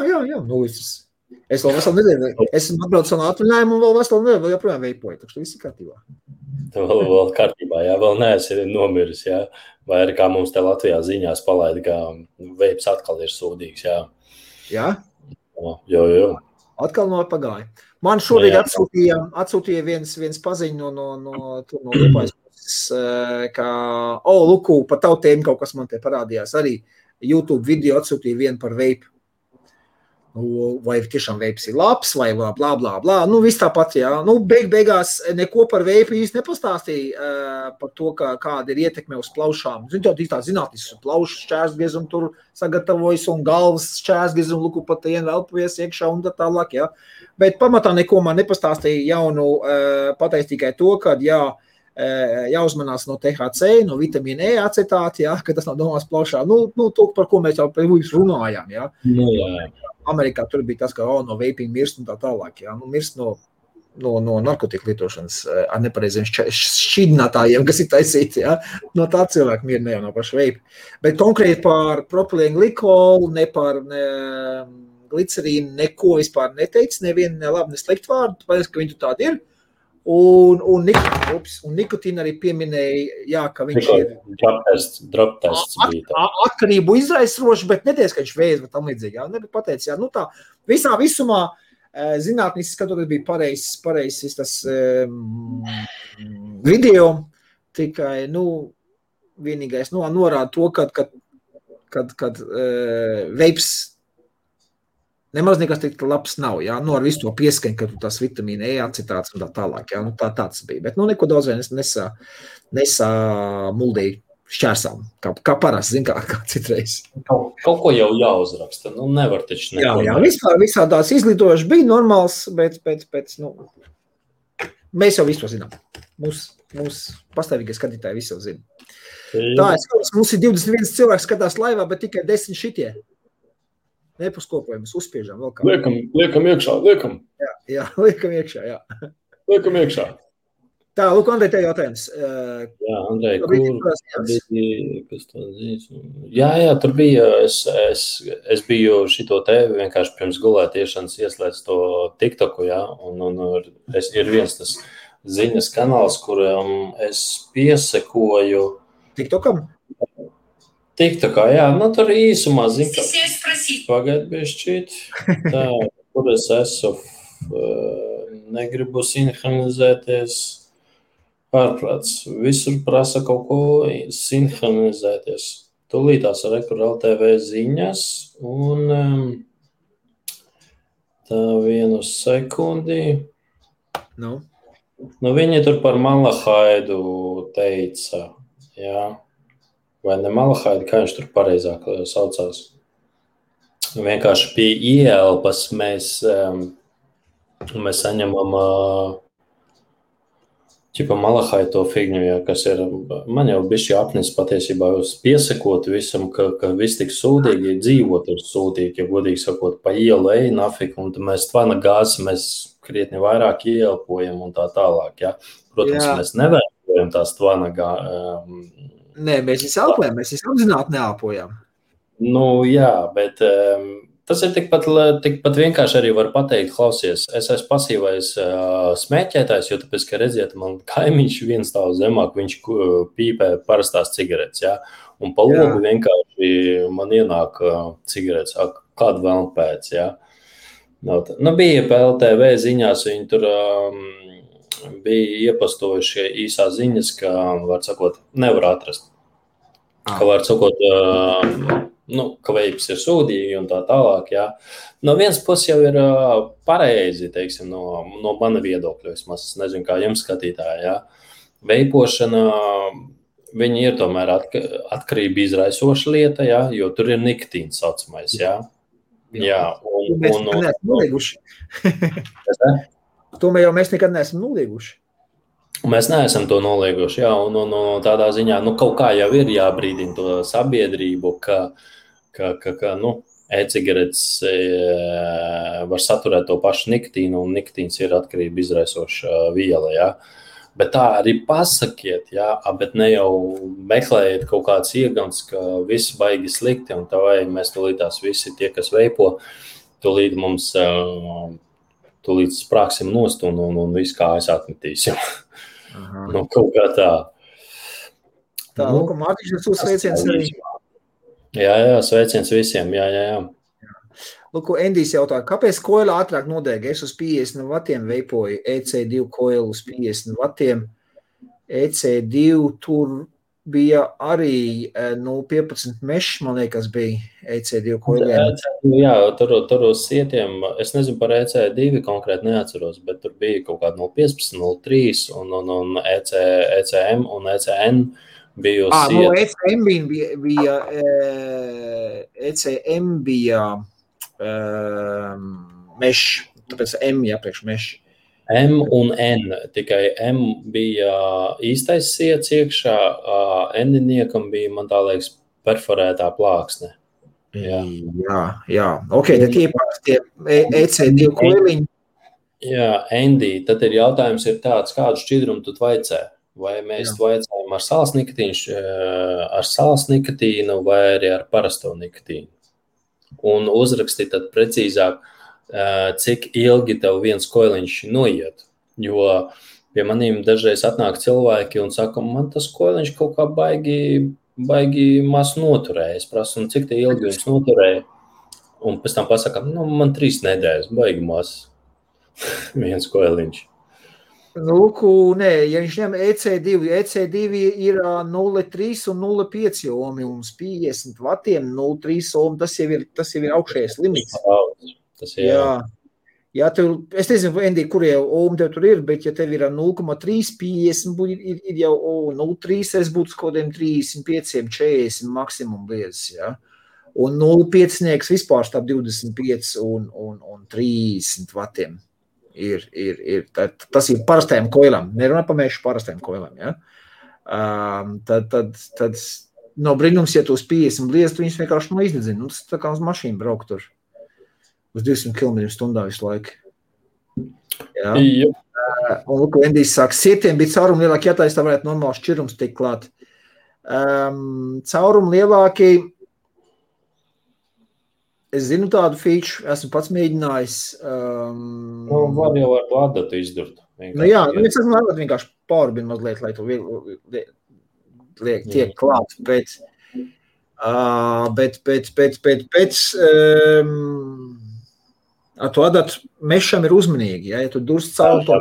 Es vēl veselu nedēļu, esmu atbraucis no atvaļinājumu un vēl veselu nedēļu vēl joprojām veipoju, tā viss ir kārtībā. Vēl kārtībā, jā, vēl neesi nomiris, jā. Vai arī kā mums te Latvijā ziņās palaida, ka veips atkal ir sūdīgs, jā. Jā? Jo. Atkal no pagāja. Man šorīt atsūtīja viens paziņu no Lupājas puses, ka, Luku, pa tavu tēmu kaut kas man te parādījās. Arī YouTube video atsūtīja vienu par veipu. Vai tiešām veips ir labs, vai blā, blā, blā. Nu, viss tāpat, jā. Nu, beigās neko par veipu īsti nepastāstīja par to, kāda ir ietekme uz plaušām. Zinu, tev tā zinātnis, plaušu šķērsgriezumu tur sagatavojas un galvas šķērsgriezumu, luku pat elpojies iekšā un tā tālāk, jā. Bet pamatā neko man nepastāstīja jaunu, pateikt tikai to, ka, jāuzmanās no THC, no vitamīna E acetāti, jā, ka tas nav domās plaušā. Nu, to, par ko mēs jau runājām, jā. Jā. Amerikā tur bija tas, ka no vaping mirst un tā tālāk, jā. Nu, mirst no narkotiku lietošanas ar nepareiziem šķidrinātājiem, kas ir taisīti, jā. No tā cilvēku mira ne jau no paša vape. Bet konkrēti par propilēnu glikolu, ne par glicerīnu, neko vispār neteicis, nevienu ne labi, ne sliktu vārdu, tāpēc, ka viņi tur tādi ir. Un nikotīna arī pieminēja, jā, ka viņš ir drop tests bija. Atkarību izraisoši, bet neties, ka viņš vēs, bet tam līdzīgi. Jā, nebija pateicis, jā, nu tā, visā visumā zinātniski skatoties bija pareizs tas video, tikai, vienīgais, norāda to, kad veips nemaz nekas tik labs nav, jā, ar visu to pieskaņu, ka tas vitamīna E acetāts un tā tālāk, jā, tāds bija. Bet, neko daudz vien nesā muldīja šķērsām, kā parasti, zin, kā citreiz. Kaut ko jau jāuzraksta, nevar taču neko. Jā, visā tās izglītojuši bija normāls, bet, mēs jau visu zinām. Mūs pastāvīgie skatītāji visu zina. Tā, mums ir 21 cilvēks skatās laivā, bet tikai 10 šitie. Nepaskopojamies, uzspiežam vēl kā. Liekam iekšā, liekam. Jā, liekam iekšā, jā. Liekam iekšā. Tā, lūk, Andrej, tev jautājums. Jā, Andrej, kas to zīs? Jā, tur bija, es biju šito te vienkārši pirms gulētiešanas ieslēdz to TikToku, jā, un ir viens tas ziņas kanāls, kuram es piesekoju. TikTokam? TikTokā, jā, tur īsumā zinu, ka pagaid bišķīt, tā, kur es esmu, negribu sinhronizēties, ārprāts, visur prasa kaut ko sinhronizēties. Tūlītās ar Rekur LTV ziņas, un tā vienu sekundi. Viņi tur par Malahaidu teica, jā. Vai ne Malahaidi, kā viņš tur pareizāk saucās. Vienkārši pie ieelpas mēs saņemam Malahaidi to figņu, jā, kas ir, man jau bišķi apnis patiesībā jūs piesakot visam, ka viss tik sūdīgi, ja dzīvot ir sūdīgi, ja godīgi sakot, pa ielu ej, nafik, un mēs tvana gāzi, mēs krietni vairāk ieelpojam un tā tālāk, jā. Protams, mēs nevērojam tās tvana Nē, mēs visi elpojam, mēs visi apzināti neelpojam. Jā, bet tas ir tikpat vienkārši arī var pateikt, klausies, es esmu pasīvais smēķētājs, jo tāpēc, ka redziet, man kaimiņš viens stāv zemāk, viņš pīpē parastās cigaretes, jā, un pa logu vienkārši man ienāk cigaretes, kādu vēl pēc, jā. Bija pa LTV ziņās, viņi tur bija iepastojuši īsā ziņas, ka, var sakot, nevar atrast. Ka, var sakot, ka veips ir sūdīgi un tā tālāk, jā. No vienas puses jau ir pareizi, teiksim, no mana viedokļa, vismaz, es nezinu, kā jums skatītāji, jā. Veipošana, viņi ir tomēr atkarība izraisoša lieta, jā, jo tur ir nikotīns saucamais, jā. Jā, mēs neesam nolieguši. To mēs nekad neesam nolieguši. Mēs neesam to nolieguši, jā, un tādā ziņā, kaut kā jau ir jābrīdina to sabiedrību, ka e-cigaretes var saturēt to pašu nikotīnu, un nikotīns ir atkarība izraisoša viela, jā. Bet tā arī pasakiet, jā, bet ne jau meklējiet kaut kāds iegams, ka viss baigi slikti, un tā vai mēs tūlītās visi tie, kas veipo, tūlīt mums tūlīt sprāksim nost un visu kājas atmetīsim. Nu, kaut kā tā. Tā, Nu, Mārtiņš, jūs sveiciens arī. Jā, sveiciens visiem, jā. Lūk, Endijs jautā, kāpēc koila ātrāk nodēga? Es uz 50 vatiem veipoju EC2 koilu uz 50 vatiem. EC2 tur bija arī 0,15 mešs, man liekas, bija EC2 koiliem. Jā, tur uz sietiem, es nezinu par EC2 konkrēti neatceros, bet tur bija kaut kāda 0,15, 0,3 un ECM un ECN bija uz sietu. ECM bija mešs, tāpēc M jāpriekš mešs. M un N, tikai M bija īstais siets iekšā, N-niekam bija, man tā liekas, perforētā plāksne. Jā. Ok, tad tie EC2 koiliņi. Jā, Andy, tad ir jautājums ir tāds, kādu šķidrumu tu vaicē? Vai mēs vaicājam ar sāls nikotīnu vai arī ar parasto nikotīnu? Un uzraksti tad precīzāk, cik ilgi tev viens koiliņš noiet, jo pie manīm dažreiz atnāk cilvēki un saka, man tas koiliņš kaut kā baigi maz noturēja. Es prasu, cik te ilgi viņš noturēja, un pēc tam pasaka, man 3 nedēļas, baigi maz viens koiliņš. Lūku, nē, ja viņš ņem EC2 ir 0,3 un 0,5 ohmi, un 50 vatiem 0,3 ohmi, tas jau ir augšējais limits. Jā, es nezinu, Endi, kurie ohmi tev tur ir, bet ja tev ir 0,350, ir jau 0,3, es būtu kodiem 35, 40 maksimum liedzis, jā. Un 0,5 vispār starp 25 un 30 vatiem. Tas ir parastajām koilām, nerunā par mešu parastajām koilām, ja? Tad no brīnums, ja tu uz 50 liest, viņas vienkārši iznedzina. Tas tā kā uz mašīnu braukt tur uz 200 km/h visu laiku. Jā. Un lūk, Endijs saka, sietiem bija caurumi lielāki, ja tā varētu normāls šķirums tikt klāt. Caurumi lielāki, es zinu tādu feature, esmu pats mēģinājis. Var jau ar to adatu izdurt. Es esmu vienkārši pārbinu mazliet, lai tu tiek klāt, bet ar to adatu mešam ir uzmanīgi, ja tu durst caur to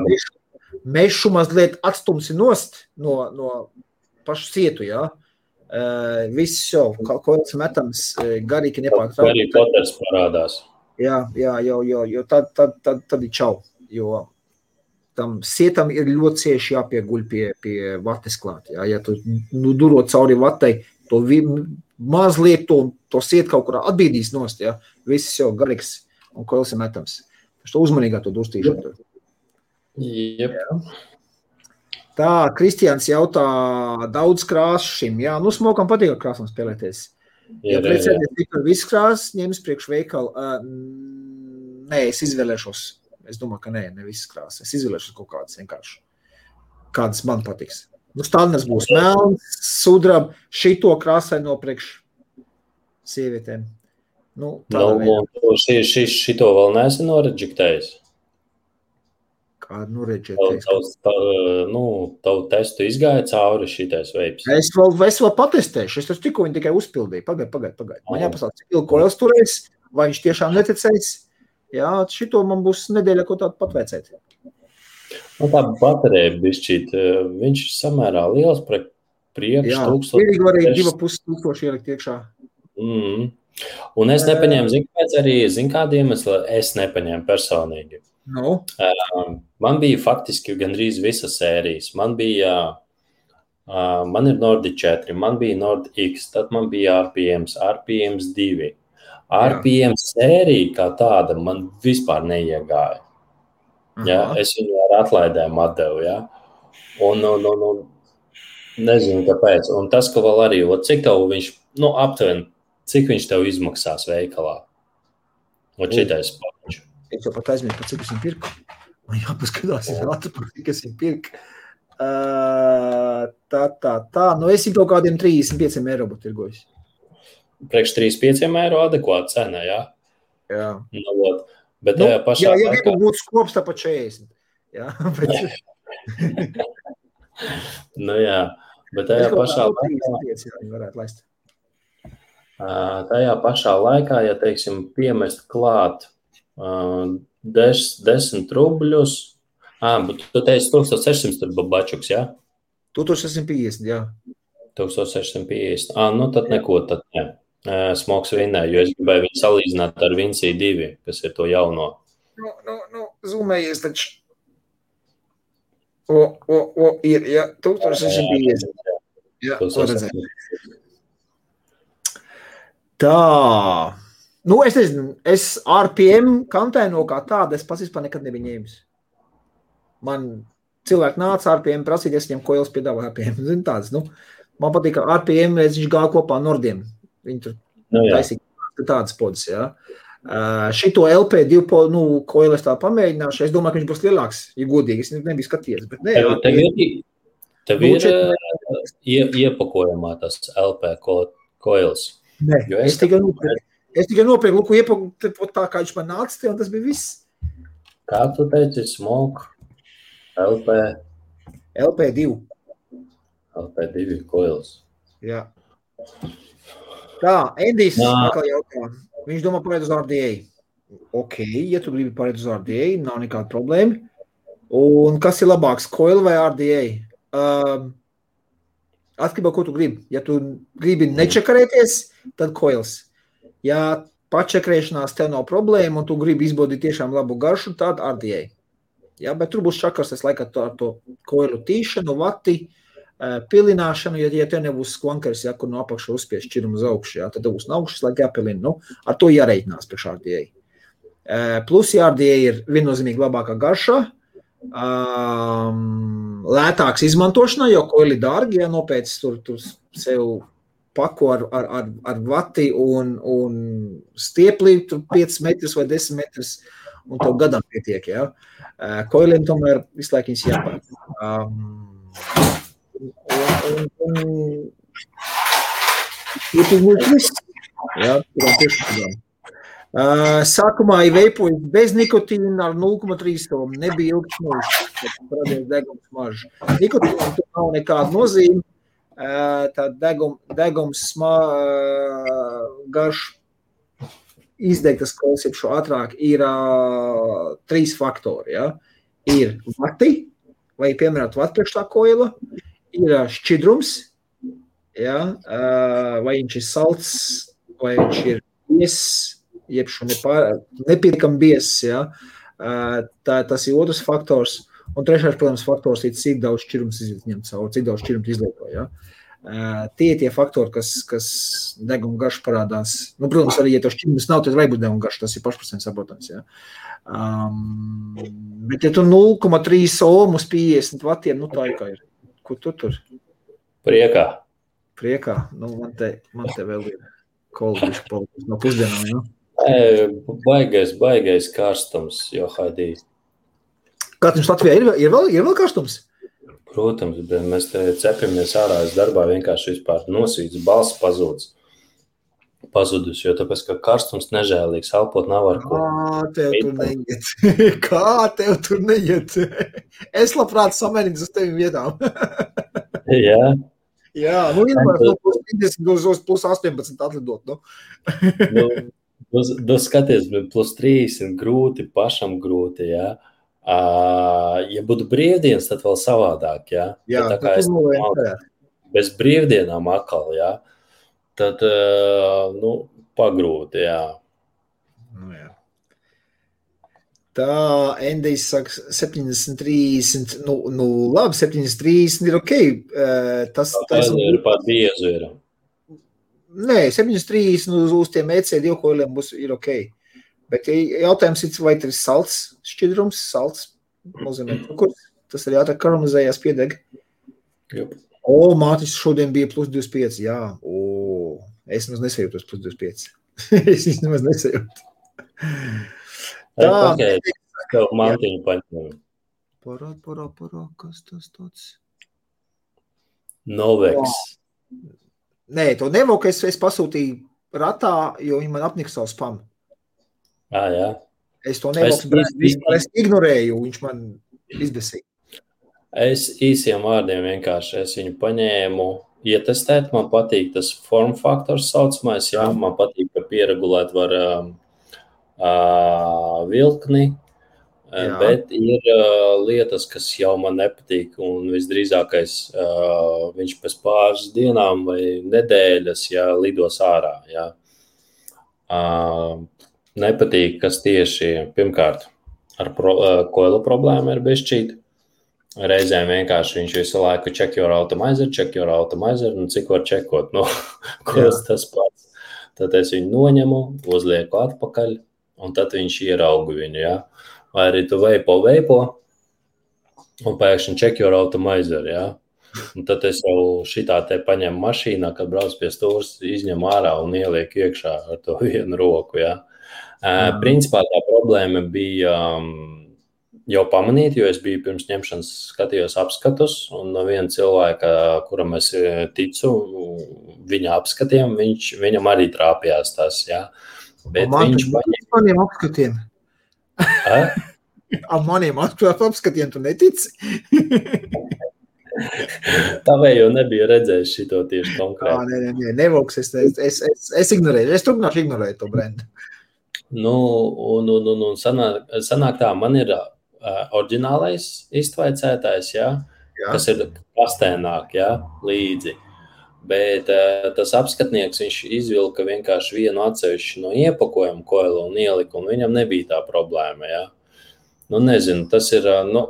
mešu mazliet atstumsi nost no pašu sietu, ja. Viss jau, kaut metams garīgi nepārtraukt. Arī poters parādās. Jā, jo tad ir čau, jo tam sietam ir ļoti cieši jāpieguļ pie vates klāt. Ja tu durot cauri vatei, to mazliet to siet kaut kurā atbīdīs nost, ja, viss jau garīgs un koils ir metams. Tas to uzmanīgā to dustīšanu. Jep. Tā, Kristians jautā daudz krāsu šim. Jā, smokam patīk ar krāsām spēlēties. Ja precēties tikai visu krāsu, ņems priekš veikalu. Nē, es izvēlēšos. Es domāju, ka ne visas krāsas. Es izvēlēšos kaut kādas vienkārši. Kādas man patiks. Standards būs melns, sudrab, šito krāsai no priekš sievietēm. Šito vēl neesi noreģiktējis? Kādu noreģiktējis? Tavu testu izgāja cauri šitais veips. Es vēl patestēšu. Es tikko viņu tikai uzpildīju. Pagaid. Man jāpasaka, cik ilgi koils turēs, vai viņš tiešām neticēs. Jā, šito man būs nedēļa, ko tādu patveicēt. Tā baterija bišķīt, viņš samērā liels priekš 1000. Jā, vienīgi var arī 2500 ielikt iekšā. Un es nepaņēmu, zin kādu iemeslu, es nepaņēmu personīgi. Man bija faktiski gandrīz visas sērijas. Man ir Nordic 4, man bija Nordic X, tad man bija RPMs 2. RPMs sērija kā tāda man vispār neiegāja. Ja? Es viņu ar atlaidēm atdevu. Ja? Un nezinu, kāpēc. Un tas, ka vēl arī, cik tev viņš, aptuveni, cik viņš tev izmaksās veikalā? Šitais paņš. Es jau pat aizmirsu, cik es viņu pirku. Man jāpaskatās, cik es viņu pirku. Es viņu kaut kādiem 35 eiro būtu tirgojis. Priekš 35 eiro adekvāta cena, jā? Jā. Bet tajā pašā ja laikā... gribu būt skops, tā pa 40. Jā, bet... Bet tajā pašā laikā... varētu laist. Tajā pašā laikā, ja, teiksim, piemest klāt 10 rubļus, bet tu teici 1600 tur babačuks, jā? 1650, jā. 1650. Tad neko, tad ne. Smoks vinnē, jo es gribēju viņu salīdzināt ar Vinci 2, kas ir to jauno. Zūmējies taču. Ir, jā, 1650. Jā, ko redzēt. Tā. Es nezinu, es RPM kantēno kā tāda, es pats vispār nekad nebiju ņēmis. Man cilvēki nāca RPM prasīt, es viņam koils piedāvā RPM. Zinu tādas, man patīk, ka RPM viņš gāja kopā Nordiem. Viņi tur taisīja tādas podas, jā. Šito LP2 koilu es tā pamēģināšu. Es domāju, ka viņš būs lielāks, ja godīgi. Es nebiju skatījies, bet nē. Tev ir iepakojumā tas LP koils. Nē, es tikai nopirku, iepaku tā, kā viņš man nāca te, un tas bija viss. Kā tu teici, Smoke? LP2. LP2 koils. Jā. Tā, Endijs atkal jautā. Viņš domā pārēt uz RDA. Ok, ja tu gribi pārēt uz RDA, nav nekāda problēma. Un kas ir labāks, coil vai RDA? Atkarībā, ko tu gribi. Ja tu gribi nečakarēties, tad coils. Ja pačakrēšanās tev nav problēma un tu gribi izbaudīt tiešām labu garšu, tad RDA. Ja, bet tur būs čakars, es laikā ar to coilu tīšanu, vati, pilināšanu, ja tev nebūs skvankers, ja, kur no apakšu uzspies šķirumu uz augšu, ja, tad būs no augšas, lai jāpilina. Ar to jāreikinās priekš RDA. Plus, ja RDA ir viennozīmīgi labākā garšā, lētāks izmantošanā, jo koili dārgi, ja nopēc tur sev paku ar vati un stiepli, tur 5 metrus vai 10 metrus, un tev gadam pietiek, ja. Koiliem tomēr visu laiku viņas jāpārāk. Sākumā ir veipojas bez nikotīna ar 0,3 somu. Nebija ilgs mūžs, kad radies degums mažs. Nikotīna tur nav nekāda nozīme. Tā degums garš izdegtas klausības šo ātrāk ir 3 faktori. Ja? Ir vati, vai piemērot vati priekš tā koila, ir šķidrums, ja? Vai viņš ir salts, vai viņš ir bies, jeb šo nepietiekam bies. Ja? Tas ir otrs faktors. Un trešais, protams, faktors ir, cik daudz šķirums izņem cauri, cik daudz šķirums izlieto. Ja? Tie faktori, kas deguma garš parādās. Protams, arī, ja to šķirums nav, tad vai būs deguma garš, tas ir pašprocents saprotams. Ja? Bet, ja tu 0,3 ohm uz 50 vatiem, tā ir kā ir. Ko tu tur? Priekā. Man te vēl ir kolbiši palikuši no pusdienām, ja? Baigais karstums, jo haidī. Karstums Latvijā ir vēl karstums? Protams, bet mēs te cepamies ārā, es darbā vienkārši vispār nosvīts, balss pazudus, jo tāpēc, ka karstums nežēlīgs, elpot nav ar ko. Kā tev tur neiet? Es labprāt samērīgs uz tevim vietām. Jā. Jā, vienmēr no plus 50 uz plus 18 atlidot, skaties, plus 30 grūti, pašam grūti, jā. Ja būtu brīvdienas, tad vēl savādāk, jā. Jā, tā kā es bez brīvdienām atkal, jā, tad, pagrūti, jā. Jā. Tā, Endijs saka 70-30, labi, 70-30 ir ok. Tas ir pat biezu ir. Nē, 7,30 uz tiem EC2 koiliem ir ok. Bet jautājums ir, vai tas ir salts šķidrums, salts nozīmē cukurs. Tas arī ātrāk karamelizējās piedeg. Mātis šodien bija plus 25, jā. Es nemaz nesajūtos plus 25. Es nemaz nesajūtu. Tā, tev mantiņu paņem. Parā, kas tas tāds? Novex. Nē, to Nevoku es pasūtīju ratā, jo viņi man apnika savu spamu. Jā. Es to nevalstu brēnu vispār, es ignorēju, viņš man izbesīja. Es īsiem vārdiem vienkārši, es viņu paņēmu ietestēt, man patīk tas form faktors saucamais, jā, man patīk, ka pieregulēt var vilkni, bet ir lietas, kas jau man nepatīk, un visdrīzākais viņš pēc pāris dienām vai nedēļas, jā, lidos ārā, jā. Nepatīk, kas tieši, pirmkārt, ar koilu problēmu ir bišķīt. Reizēm vienkārši viņš visu laiku check your automizer, un cik var čekot, koils tas pats. Tad es viņu noņemu, uzlieku atpakaļ, un tad viņš ieraugu viņu, jā. Vai arī tu veipo, un pēkšņi check your automizer, jā. Un tad es jau šitā te paņemu mašīnā, kad brauc pie stūras, izņem ārā un ieliek iekšā ar to vienu roku, jā. Principā tā problēma bija jau pamanīt, jo es biju pirms ņemšanas skatījos apskatus, un no viena cilvēka, kuram es ticu, viņa apskatiem, viņam arī trāpījās tas, jā. Bet viņš maniem apskatiem. Maniem apskatiem tu netici? Tavējo nebija redzējis šito tieši konkrēti. Nē, nevoks, es ignorēju, es turpināšu ignorēt to brendu. Un sanāk tā, man ir oriģinālais iztvaicētājs, jā, kas ir kastēnāk, jā, līdzi. Bet tas apskatnieks, viņš izvilka vienkārši vienu atsevišķu no iepakojumu koilu un ielika, un viņam nebija tā problēma, jā. Nezinu, tas ir,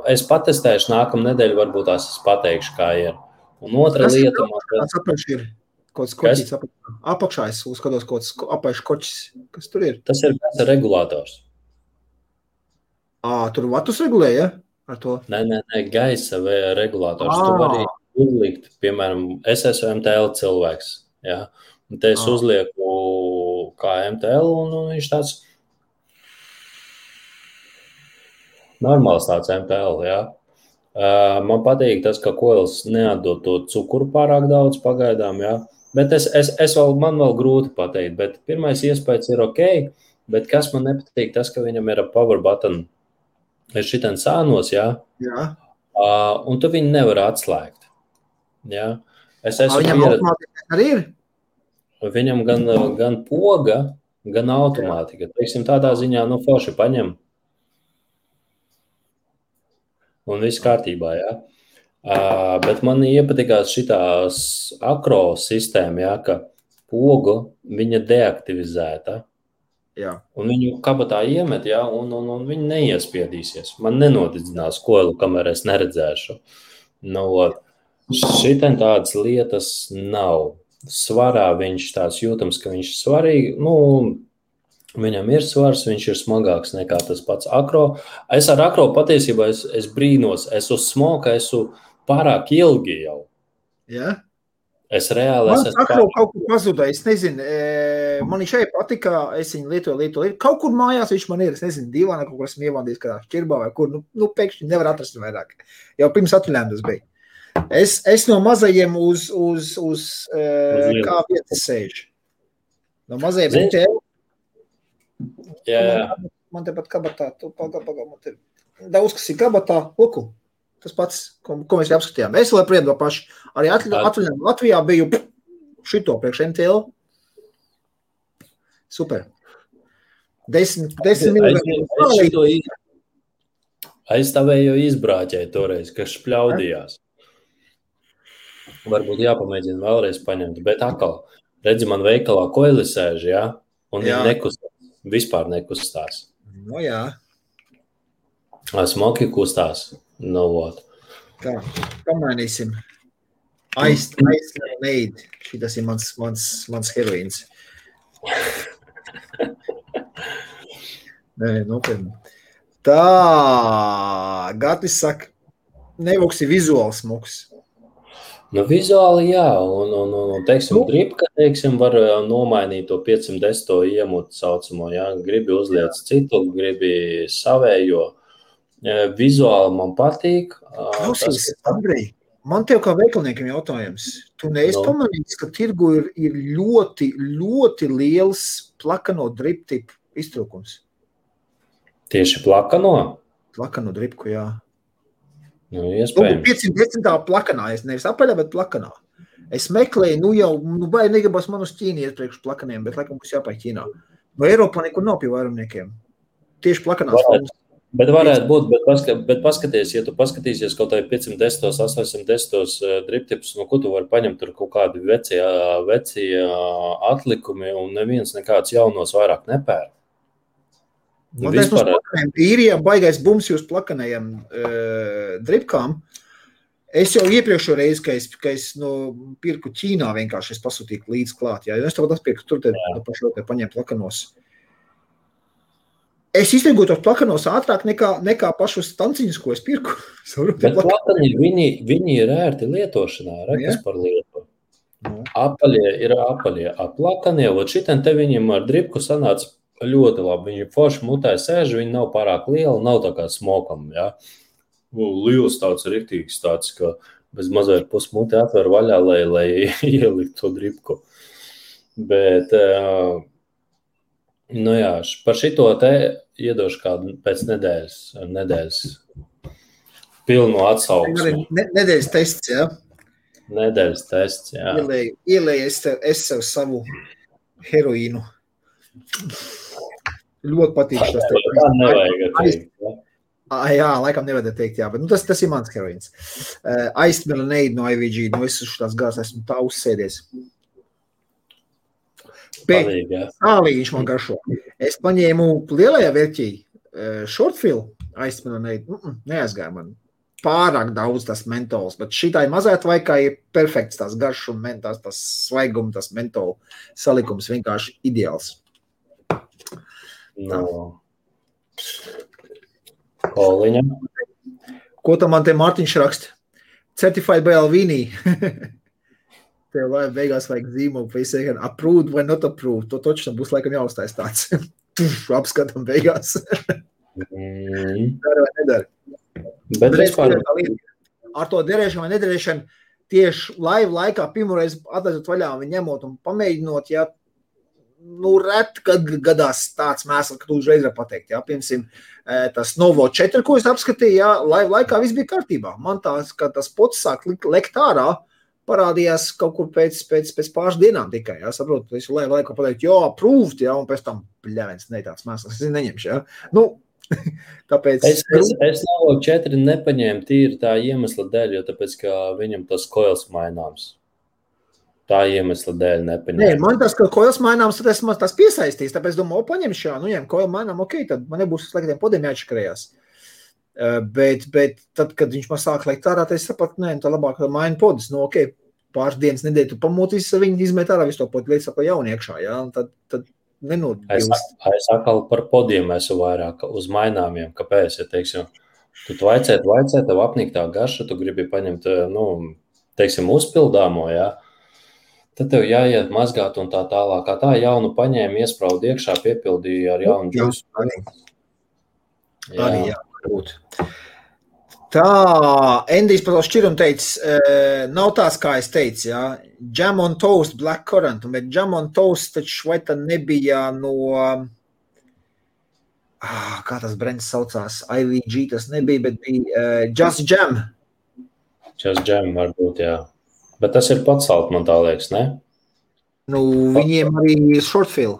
es patestēšu nākamā nedēļa, varbūt tās es pateikšu, kā ir. Un otra lieta... Kāds apaļš ir? Kāds koķis apakšā, es uzskatos, kāds apaļš koķis, kas tur ir? Tas ir gaisa regulators. Tur vatus regulē, ja? Ar to? Nē, gaisa regulators. Tu vari uzlikt, piemēram, es esmu MTL cilvēks, ja? Un te es uzlieku kā MTL, un viņš tāds normāls tāds MTL, ja? Man patīk tas, ka koils neatdod to cukuru pārāk daudz pagaidām, ja? Bet man vēl grūti pateikt, bet pirmais iespējas ir ok, bet kas man nepatīk, tas, ka viņam ir power button, ir šitien sānos, jā? Jā. Un tu viņu nevar atslēgt, jā? Viņam automātika arī ir? Viņam gan poga, gan automātika. Teiksim, tādā ziņā, forši paņem. Un viss kārtībā, jā. Bet man iepatikās šitās akro sistēma, jā, ka pogu viņa deaktivizēta. Jā. Un viņu kabatā iemet, jā, un viņi neiespiedīsies. Man nenodidzinās koilu, kamēr es neredzēšu. Šitien tādas lietas nav. Svarā viņš tāds jūtams, ka viņš svarīgi, viņam ir svars, viņš ir smagāks nekā tas pats akro. Es ar akro patiesībā es brīnos, es uz smoka esmu pārāk ilgi jau. Jā? Es reāli esmu... Akro kaut kur pazuda, es nezinu, man šeit patika, es viņu lietoju. Kaut kur mājās viņš man ir, es nezinu, divāna kaut kur esmu ievandījis kādā šķirbā vai kur, pēkšņi nevar atrast vairāk. Jau pirms atvaļinājuma tas bija. Es no mazajiem uz kā vietas sēžu. No mazajiem MTL. Jā. Man tepat kabatā, man te daudz, kas ir kabatā, luku. Tas pats, ko mēs apskatījām. Es vēl priedu paši. Arī atvaļinājumā Latvijā biju šito priekš MTL. Super. 10 minūtes. Aizstāvēju izbrāķēju toreiz, kas špļaudījās. Varbūt jāpamēģina vēlreiz paņemt, bet atkal, redzi, man veikalā koili sēž, jā, un viņi nekustās, vispār nekustās. Jā. Smoki kustās, Tā, pamainīsim. Ice Lemonade. Šitas ir mans heroīns. Nē, nopietni. Tā, Gatis saka, nevoks ir vizuāls smoks. Vizuāli jā, un teiksim, dripka, var nomainīt to 510 iemutu saucamo, jā, gribi uzliec citu, gribi savējo. Vizuāli man patīk. Klausies, Andrej, man tev kā veikalniekam jautājums. Tu neesi pamanīts, ka tirgu ir ļoti, ļoti liels plakano driptipu iztrūkums? Tieši plakano? Plakano dripku, jā. Nu, iespējams. 510. plakanā, es nevis apaļā, bet plakanā. Es meklēju, vai negribas man uz Ķīnu iet priekš plakaniem, bet laikam būs jāpāj Ķīnā. No Eiropā nekur nav pie vairumniekiem. Tieši plakanās formas. Bet varētu būt, bet paskaties, ja tu paskatīsies kaut vai 510, 810 driptipus, no ko tu vari paņemt tur kaut kādi vecie atlikumi un neviens nekāds jaunos vairāk nepēr. Man teiks, mums plakaniem īrijā baigais bums jūs plakanējiem dripkām. Es jau iepriekšo reizi, ka es pirku Ķīnā vienkārši es pasūtīju līdz klāt. Jā, es tev atpirku, tur te pašu te paņemt plakanos. Es iztirgoju tos plakanos ātrāk nekā pašus stanciņus, ko es pirku. Bet plakani, viņi ir ērti lietošanā, rekas par lietu. Apaļie ir apaļie. Plakanie, šitam te viņiem ar dripku sanāca ļoti labi. Viņi forši mutē sēž, viņi nav pārāk liela, nav tā kā smokam, jā. Liels tāds riktīgs tāds, ka bez mazliet pusmuti atver vaļā, lai ielikt to dripku. Bet, nu jā, par šito te iedošu kādu pēc nedēļas pilnu atsauksmi. Nedēļas tests, jā? Nedēļas tests, jā. Ielēju es sev savu heroīnu. Ļoti patīk tas. Tā nevajag teikt, jā. Jā, laikam nevajag teikt, jā, bet tas ir mans heroīns. Aiztmeleneid no IVG, es uz tās gars esmu tā uzsēdies. Pēc sālīņš man garšo. Es paņēmu lielajā vērķī shortfill aiztmeleneid, neaizgāja man. Pārāk daudz tas mentols, bet šitai mazēt vaikā ir perfekts tās garš un tas svaigums, tas mentol salikums vienkārši ideāls. No. Koliņa. Ko tam man te Mārtiņš raksta? Certified by Alvini. Tev lai beigās vajag zīmogu, vai izsēkam approved vai not approved. To toču būs laikam jāuztais tāds. Apskatam beigās. Dara vai nedara. Bet vispār... Ar to derēšanu vai nederēšanu tieši live laikā pirmoreiz atlaidot vaļā un ņemot un pamēģinot, ja ret, kad gadās tāds mēsls, ka tu uzreiz var pateikt, jā, piemēram, tas Novo 4, ko es apskatīju, jā, live laikā viss bija kārtībā. Man tās, kad tas pots sāk lekt ārā, parādījās kaut kur pēc pāris dienām tikai, jā, saprotu, es live laikā pateikt, jā, approved, jā, un pēc tam, bļavens, ne tāds mēsls, es neņemšu, jā. Nu, tāpēc... Es Novo 4 nepaņēmu tīri tā iemesla dēļ, jo tāpēc, ka viņam tas koils maināms. Tā iemesla dēļ nepaņēmu. Nē, man tas, ka koils maināms, tad esmu tas piesaistīs, tāpēc domāju, paņemšu, jā, ņem koils mainām, ok, tad man nebūs sliktiem podiem jāatšakarējās. Bet tad, kad viņš man sāk lekt ārā, tad es sapratu, nē, tā labāk maina podis, nu, ok, pāris dienas nedēļ tu pamūtīs, viņi izmet ārā visu to podi, lietas saka jauni iekšā, jā, un tad nenodbilst. Es atkal par podiem esmu vairāk uz maināmiem, kāpēc, ja, teiksim, tu vaicē, tev apnīk tā garša, tu gribi paņemt, nu, teiksim, uzpildāmo, jā, tad tev jāiet mazgāt un tā tālāk, kā tā jaunu paņēma, iespraudu iekšā, piepildīja ar jaunu džusu. Arī, jā, būt. Tā, Endijs par to šķirumu teica, nav tās, kā es teicu, jā, Jam on Toast, Black Currant, bet Jam on Toast taču vai tad nebija no, kā tas brands saucās, IVG tas nebija, bet bija Just Jam. Just Jam varbūt, jā. Bet tas ir pats salt, man tā liekas, ne? Nu, viņiem arī shortfill.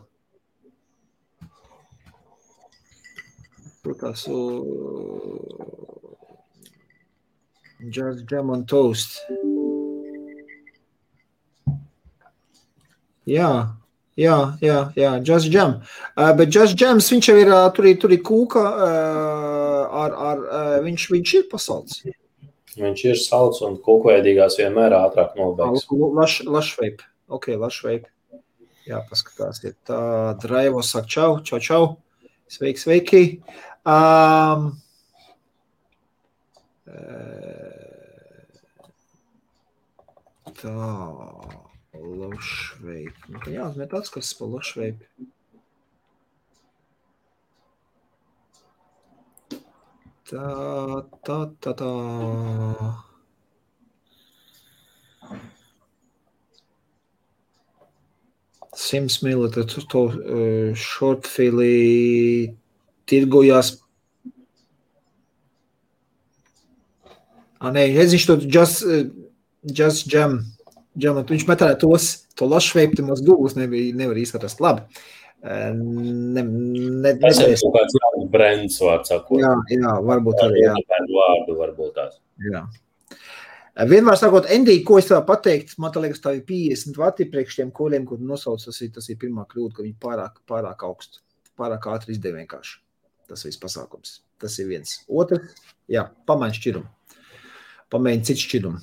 Protās, Just Jam on Toast. Jā, Just Jam. Bet Just Jams, viņš jau ir, tur ir kūka, viņš ir pasalds. Viņš ir salds un kūkveidīgās vienmēr ātrāk nobeigs. Lašveip. Ok, lašveip. Jā, paskatās. Ir tā, Draivo saka čau. Sveiki. Tā, lašveip. Jā, met atskats pa lašveip. Tā. 100 ml to shortfilī tirgojās. Nē, viņš to Just Jam. Viņš metāja to lašveipti mūs Google nevar izskatās labi. Tas ir kaut kāds jauns brands, vārds sakot. Jā, varbūt arī, jā. Vārdu varbūt tās. Jā. Vienmēr sakot, Endī, ko es tev pateikt, man tā liekas, tā ir 50 vati priekš tiem koļiem, kur nosauc, tas ir pirmā kļūda, ka viņi pārāk augstu, pārāk ātri izdeva vienkārši. Tas viss pasākums. Tas ir viens. Otrs, jā, pamaini šķirumu. Pamēģini citu šķirumu.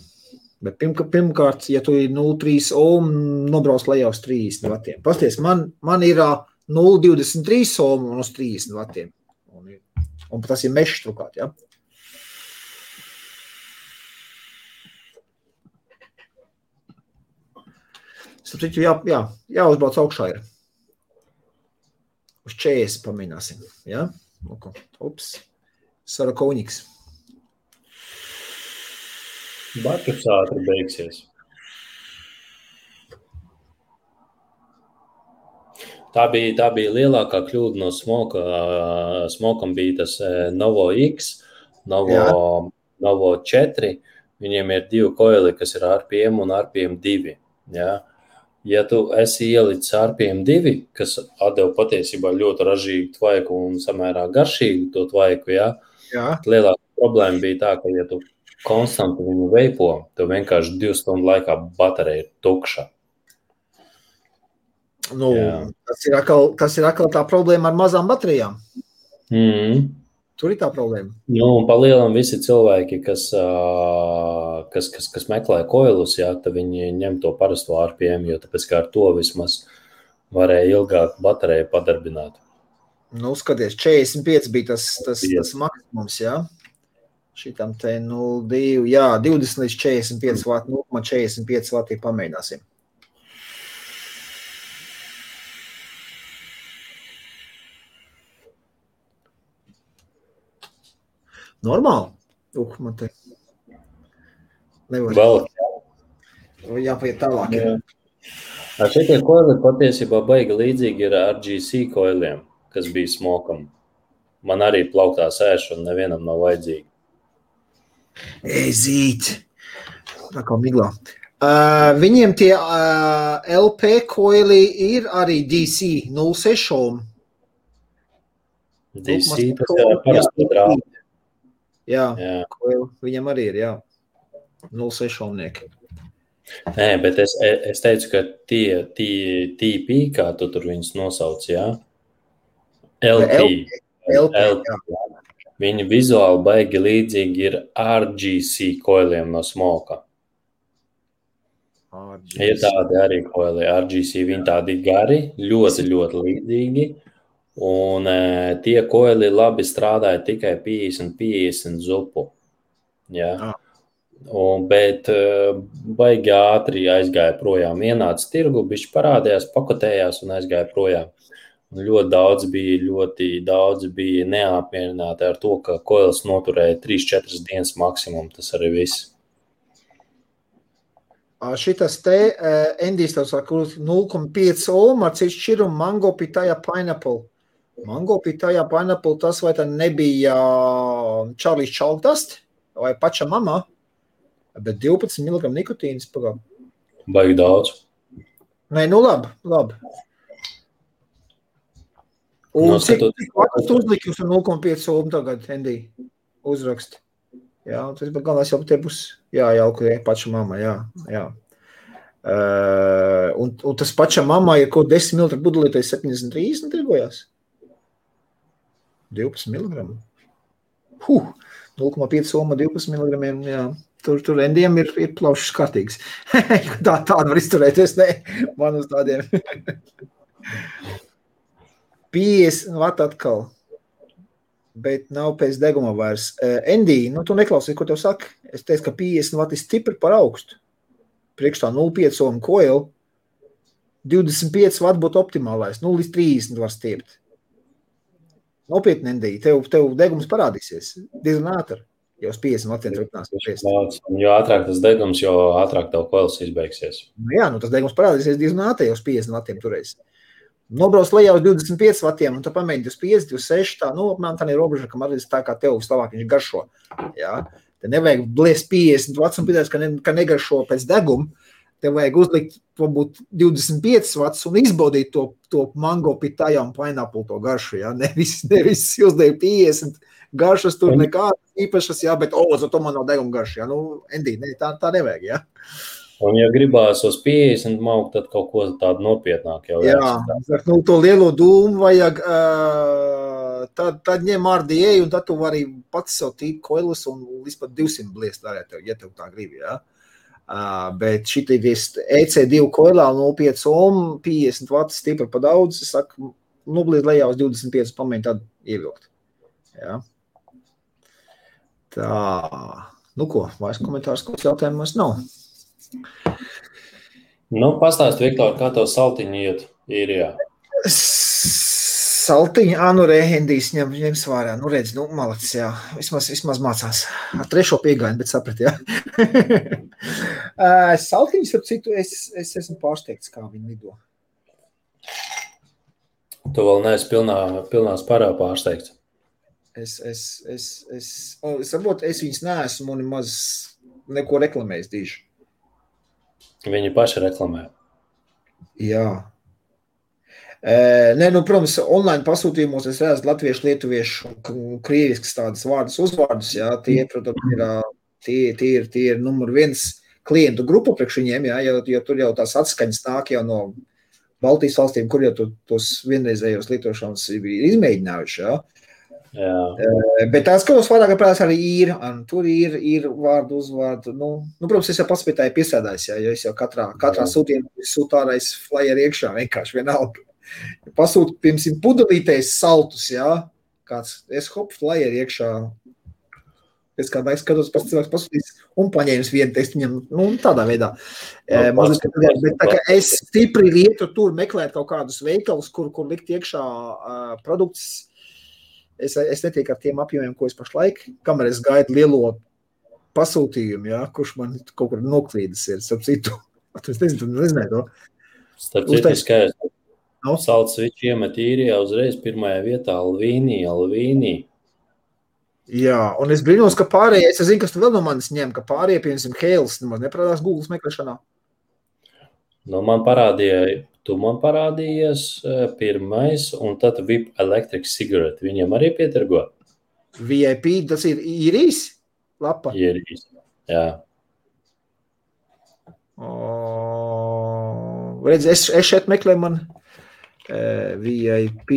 Bet pirmkārt, ja tu ir 0,3 ohm, nobrauc lejā uz 30 vatiem. Pasties, man ir 0,23 ohm un uz 30 vatiem. Un tas ir mešs trukāt, jā. Sapratu, jāuzbrauc augšā ir. Uz 40 pamēģināsim, jā. Ups, Sarakovņiks. Baķus ātri beigsies. Tā bija lielākā kļūda no Smoka. Smokam bija tas Novo X, Novo 4. Viņiem ir 2 koili, kas ir RPM un RPM 2. Ja? Ja tu esi ielicis RPM 2, kas atdeva patiesībā ļoti ražīgu tvaiku un samērā garšīgu to tvaiku, ja? Lielākā problēma bija tā, ka ja tu konstanti viņu veipo, tev vienkārši 2 stundu laikā baterija ir tukša. Tas ir atkal tā problēma ar mazām baterijām. Tur ir tā problēma. Un pa lielam visi cilvēki, kas meklē koilus, jā, tad viņi ņem to parasto RPM, jo tāpēc kā ar to vismaz varēja ilgāk bateriju padarbināt. Skaties, 45 bija tas maksimums, jā. Šitam te 0,2, jā, 20 līdz 45 vati, 0,45 vati pamēģināsim. Normāli? Man te nevar. Vēl. Jāpaiet tālāk. Šitie koili patiesībā baigi līdzīgi ir RGC koiliem, kas bija Smokam. Man arī plauktā sēž un nevienam nav vajadzīgi. Zīt. Tā kā miglā. Viņiem tie LP koili ir arī DC 0,6 ohm. DC, tas ir parasti drābi. Jā. Koili viņam arī ir, jā. 0,6 ohmnieki. Nē, bet es teicu, ka tie TP, kā tu tur viņus nosauc, jā? LP, jā. Viņi vizuāli baigi līdzīgi ir RGC koiliem no Smoka. Ir tādi arī koili. RGC viņi tādi gari, ļoti līdzīgi. Un tie koili labi strādāja tikai 50 zupu. Ja? Bet baigi ātri aizgāja projām. Ienāca tirgu, bišķi parādījās, pakotējās un aizgāja projām. Ļoti daudz bija neapmierināti ar to, ka koils noturēja 3-4 dienas maksimum. Tas arī viss. Šitas te, Endijs tev saka, 0,5 ohm ar citu šķirumu Mango Pitaya Pineapple. Mango Pitaya Pineapple, tas vai tā nebija Charlie's Chalkdust vai paša mamā, bet 12 mg nikotīnas pagā. Baigi daudz. Nē, labi. Un cik vatus uzliki uz 0,5 ohm tagad, Endī, uzrakst? Jā, tas galvenais jau te būs jājalku paša mamma, jā. Un tas paša mamma ir kaut 10 ml budelītais 73 tirgojās? 12 mg. 0,5 ohm 12 mg, jā. Tur Endijam ir plaušas kārtīgs. Tāda var izturēties, ne? Man uz tādiem. 50 vati atkal, bet nav pēc deguma vairs. Endī, tu neklausīji, ko tev saka? Es teicu, ka 50 vati ir stipri par augstu. Priekš tā 0,5 ohm koilu, 25 vati būtu optimālais, 0 līdz 30 var stiept. Nopietni, Endī, tev degums parādīsies diezgan ātri, jau uz 50 vatiem turpinās. Jo ātrāk tas degums, jo ātrāk tev koils izbeigsies. Jā, tas degums parādīsies diezgan ātri, jau uz 50 vatiem turēs. Nobrauc lejā uz 25 vatiem, un tu pamēģini 25, 26, tā, apmēram tā ir robeža, kam arī tā kā tev Slovāk viņš garšo. Jā. Te nevajag bliest 50 vats un pīdēs, ka negaršo pēc deguma. Tev vajag uzlikt, varbūt 25 vats un izbaudīt to mango pitājā un pineapple to garšu, jā. Nevis uzliek 50 garšas tur nekādas īpašas, jā, bet, to man nav deguma garša, jā. Endī, ne, tā nevajag, jā. Un, ja gribās uz 50 maukt, tad kaut ko tādu nopietnāk jau jāsaka. To lielo dūmu vajag, tad ņem RDA, un tad tu vari pats sev tīt koilus un līdz pat 200 bliest varētu, ja tev tā gribi, jā. Bet šitie EC2 koilā 0,5 ohm, 50 vati stipri pa daudz, es saku, bliest lejā uz 25 pamēģi tad ievilkt. Jā. Tā, ko, vairs komentārs, kāds jautājums nav? Pastāst, Viktor, kā tev saltiņi iet īrijā? Saltiņi, Rehendijs ņems vārā. Redz, malacis, jā. Vismaz mācās. Ar 3. piegājienu, bet saprat, jā. Saltiņus, ap citu, es esmu pārsteigts, kā viņi lido. Tu vēl neesi pilnā spārā pārsteigts. Varbūt es viņus neesmu un maz neko reklamējis dīši. Viņi paši reklamē. Jā. Protams, online pasūtījumos es redzu latviešu, lietuviešu un krieviskas tādas vārdus, uzvārdus, jā, tie, protams, ir numur 1 klientu grupu priekš viņiem, jā, jo tur jau tās atskaņas nāk jau no Baltijas valstīm, kur jau tos vienreizējos lietošanas ir izmēģinājuši, jā. Jā. Bet tās skatos vairāk prātās arī ir, un tur ir vārdu, uzvārdu, protams, es jau pats pie tā piesēdājis, jā, jo es jau katrā sūtījumā sūtārais flyer iekšā, vienkārši vienalga. Pasūt, piemēram, pudelītēs saltus, jā, kāds flyer iekšā, pēc kādā skatos, pats cilvēks pasūtīs un paņēmis vienu tekstu viņam, tādā veidā. Bet tā kā es stipri lietu tur meklēt kaut kādus veikalus, kur likt iekšā produktus, es netieku ar tiem apjomiem, ko es pašlaik, kamēr es gaidu lielo pasūtījumu, jā, kurš man kaut kur noklīdas ir, starp citu. Es nezinu to. Starp citu skaidrs. Salts viņš iemet īrijā uzreiz pirmajā vietā Alvīnī. Jā, un es brīnos, ka pārējie, es zinu, kas tu vēl no manis ņem, ka pārējie, piemēram, Hēls, nemaz neparādās Google meklēšanā. Tu man parādījies pirmais, un tad VIP Electric Cigarette. Viņam arī pietirgo? VIP, tas ir īrijas lapa? Īrijas, jā. Redz, es šeit meklēju man VIP.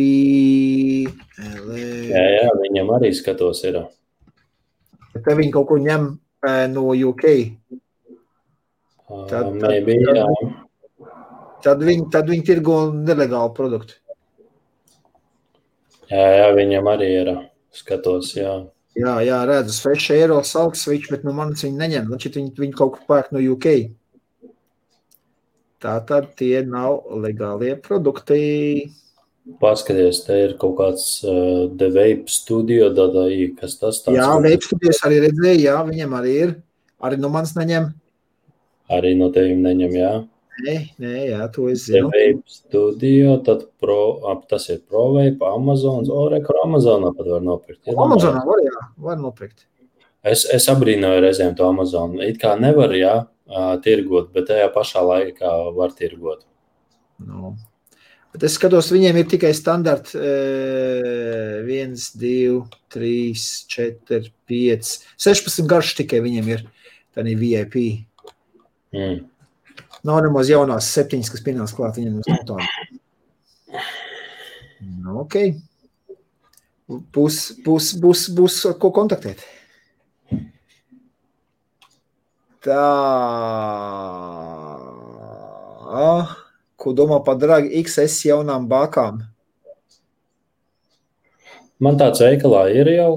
Jā, viņam arī skatos ir. Te viņi kaut ko ņem no UK. Jā. Tad viņi tirgo nelegālu produktu. Jā, viņam arī ir. Skatos, jā. Jā, redzu, 6 eiro salt switch, bet manis viņi neņem. Viņi kaut ko pērk no UK. Tātad tie nav legālie produkti. Paskaties, te ir kaut kāds The Vape Studio, kas tas tāds? Jā, Vape Studios arī redzēju, jā, viņam arī ir. Arī no manis neņem. Arī no tevim neņem, jā. Nē, jā, to es zinu. The Vape Studio, tad tas ir ProVape, Amazons, Amazonā pat var nopirkt. Amazonā var nopirkt. Es abrīnoju reizēm to Amazonu. It kā nevar, jā, tirgot, bet tajā pašā laikā var tirgot. Bet es skatos, viņiem ir tikai standarti 1, 2, 3, 4, 5, 16 garš tikai viņiem ir. Tā ir VIP. Nav nemaz jaunās 7, kas pienās klāt viņiem uz tādu. Ok. Būs ko kontaktēt. Tā. Ko domā par Drag XS jaunām bākām? Man tāds veikalā ir jau.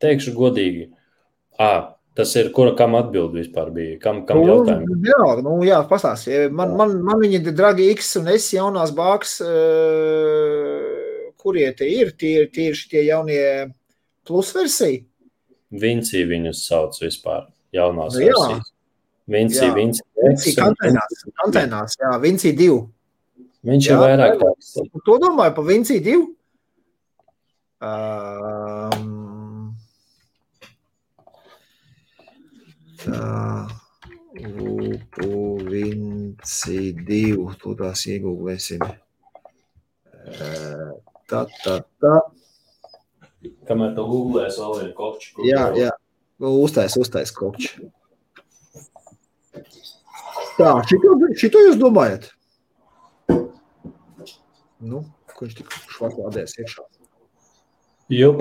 Teikšu godīgi. Tas ir, kam atbild vispār bija? Kam jautājumi? Jā, pastāst. Man viņi ir Drag X un S jaunās bāks, kurie te ir? Tie ir šitie jaunie plus versija? Vinci viņus sauc vispār, jaunās versijas. Vinci kantēnās, jā, Vinci 2. Viņš ir vairāk tāds. To domāju pa Vinci 2. Tā, Vinci 2, to tās iegūlēsim. Tā. Kamēr tu googlēs vēl vienu kokču. Jā. Uztais kokču. Tā, šito jūs domājat? Nu, ko viņš tik švaklādēs iekšā? Jup.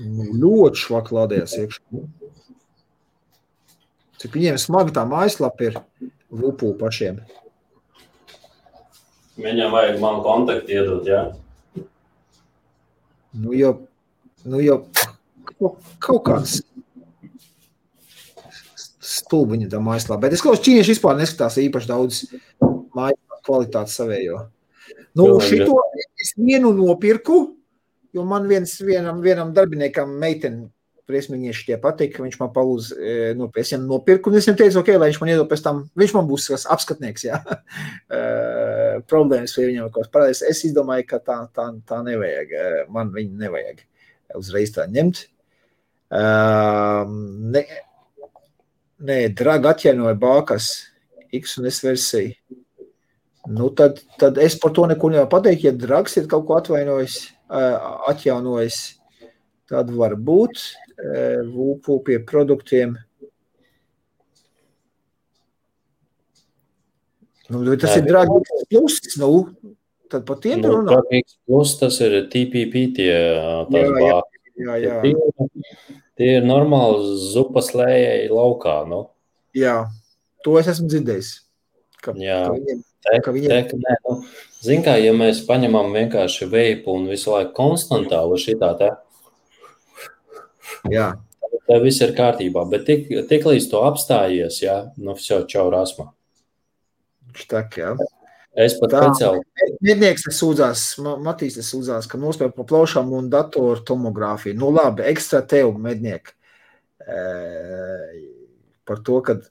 Nu, ļoti švaklādēs iekšā. Cik viņiem smagi tā mājaslapa ir Vupu pašiem. Viņam vajag man kontaktu iedot, jā? Nu jau kaut kāds stulbiņa tā mājaslapa. Bet es klausu, ķīnieši vispār neskatās īpaši daudz mājaslapa kvalitātes savējo. Nu, šito es vienu nopirku, jo man vienam darbiniekam meiteni priesmīnieši tie patīk, ka viņš man palūdz es viņam nopirku, un es viņam teicu, ok, lai viņš man iedod pēc tam, viņš man būs apskatnieks, jā. Problēmas vai viņam kaut parādīs. Es izdomāju, ka tā nevajag, man viņu nevajag uzreiz tā ņemt. Nē, Draga atjaunoja bākas X un S versiju. Nu, tad es par to neko nevaru pateikt, ja Drags ir kaut ko atjaunojis, tad var būt Vupu pie produktiem. Nu, tas ir Drags Plus, tad par tiem runā. Drags Plus, tas ir TPP tās bākas. Jā. Tie ir normāli zupas lējai laukā, nu. Jā, to es esmu dzirdējis. Zin kā, ja mēs paņemam vienkārši veipu un visu laiku konstantāli šitā te, jā. Tā viss ir kārtībā, bet tik līdz to apstājies, jā, nu все, čau rasma. Tak, jā. Es pat speciāli. Mednieks sūdzās, Matīs sūdzās, ka nospēj pa plaušām un datoru tomogrāfiju. Nu labi, ekstra tev, medniek, par to, kad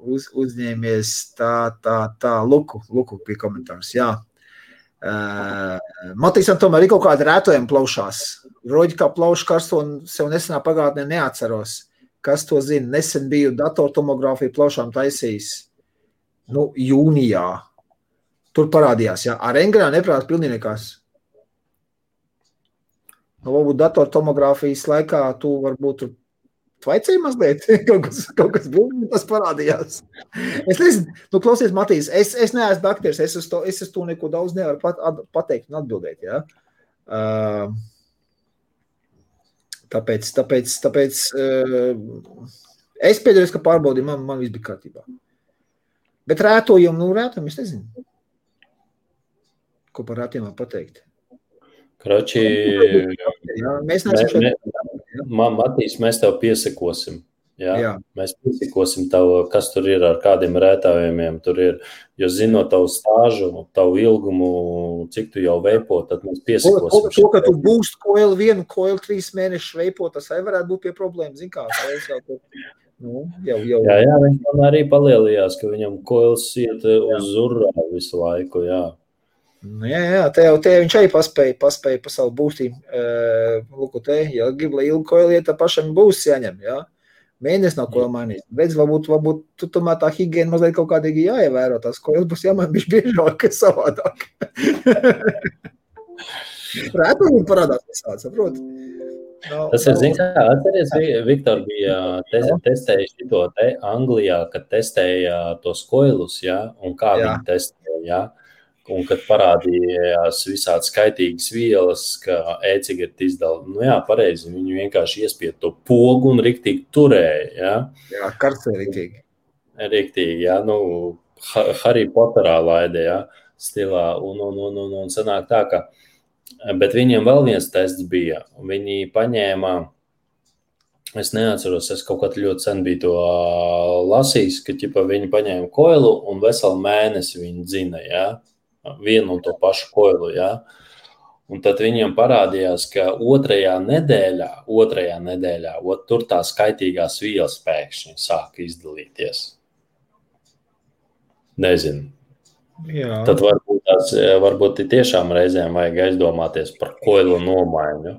uzņēmies tā luku pie komentārs, jā. Matīsam tomēr ir kaut kāda rētojuma plaušās. Roģi kā plaušu karsto un sev nesenā pagātnē neatceros. Kas to zina? Nesen biju datortomogrāfiju plaušām taisījis. Nu, jūnijā. Tur parādījās, jā. Ar Engrā neprāt pilnīgi nekās. Nu, varbūt datortomogrāfijas laikā tu varbūt tur tvaicēji mazliet. kaut kas būtu, tas parādījās. Es nezinu, nu klausies, Matīs, es neesmu dakteris, es uz to neko daudz nevaru pateikt un atbildēt, jā. Tāpēc es pēdējos, ka pārbaudīju, man viss bija kārtībā. Bet rētojumu, es nezinu. Ko par rētiem var pateikt? Kroči, Matīs, mēs tev piesakosim. Jā. Mēs piesakosim tev, kas tur ir ar kādiem rētājumiem. Tur ir, jo zinot tavu stāžu, tavu ilgumu, cik tu jau veipo, tad mēs piesakosim. To, ka tu būst koili 3 mēnešus veipo, tas arī varētu būt pie problēmas. Zin kā, jau. Jā, viņš man arī palielījās, ka viņam koils iet uz urā visu laiku, jā. Jā, te viņš arī paspēja pa savu būstīm. Lūku te, ja grib, lai ilgu koili iet, tad pašam būs jāņem, jā. Mēnesis nav koili mainīt. Redz, varbūt tu tomēr tā higiena mazliet kaut kādīgi jāievēro. Tās koilis būs jāmaina bišķi biežāk, kas savādāk. Rētojumi parādās visādi, saprot? Tas ir, zin kā, atceries, Viktor bija testējis šito te Anglijā, kad testēja tos koilus, jā, un kā viņi testēja, jā. Un kad parādījās visādi skaitīgas vielas, ka e-cigareti izdala, nu jā, pareizi, viņi vienkārši iespied to pogu un riktīgi turēja, jā. Jā, karstē riktīgi. Riktīgi, jā, nu, Harry Potterā laide, jā, stilā, un sanāk tā, ka, bet viņiem vēl viens tests bija, viņi paņēma, es neatceros, es kaut kad ļoti sen biju to lasījis, ka, ķipa, viņi paņēma koilu un veselu mēnesi viņi dzina, jā. Vienu un to pašu koilu, jā. Un tad viņiem parādījās, ka otrajā nedēļā, tur tā skaitīgās vielas pēkšņi sāka izdalīties. Nezinu. Jā. Tad varbūt tiešām reizēm vajag aizdomāties par koilu nomaiņu.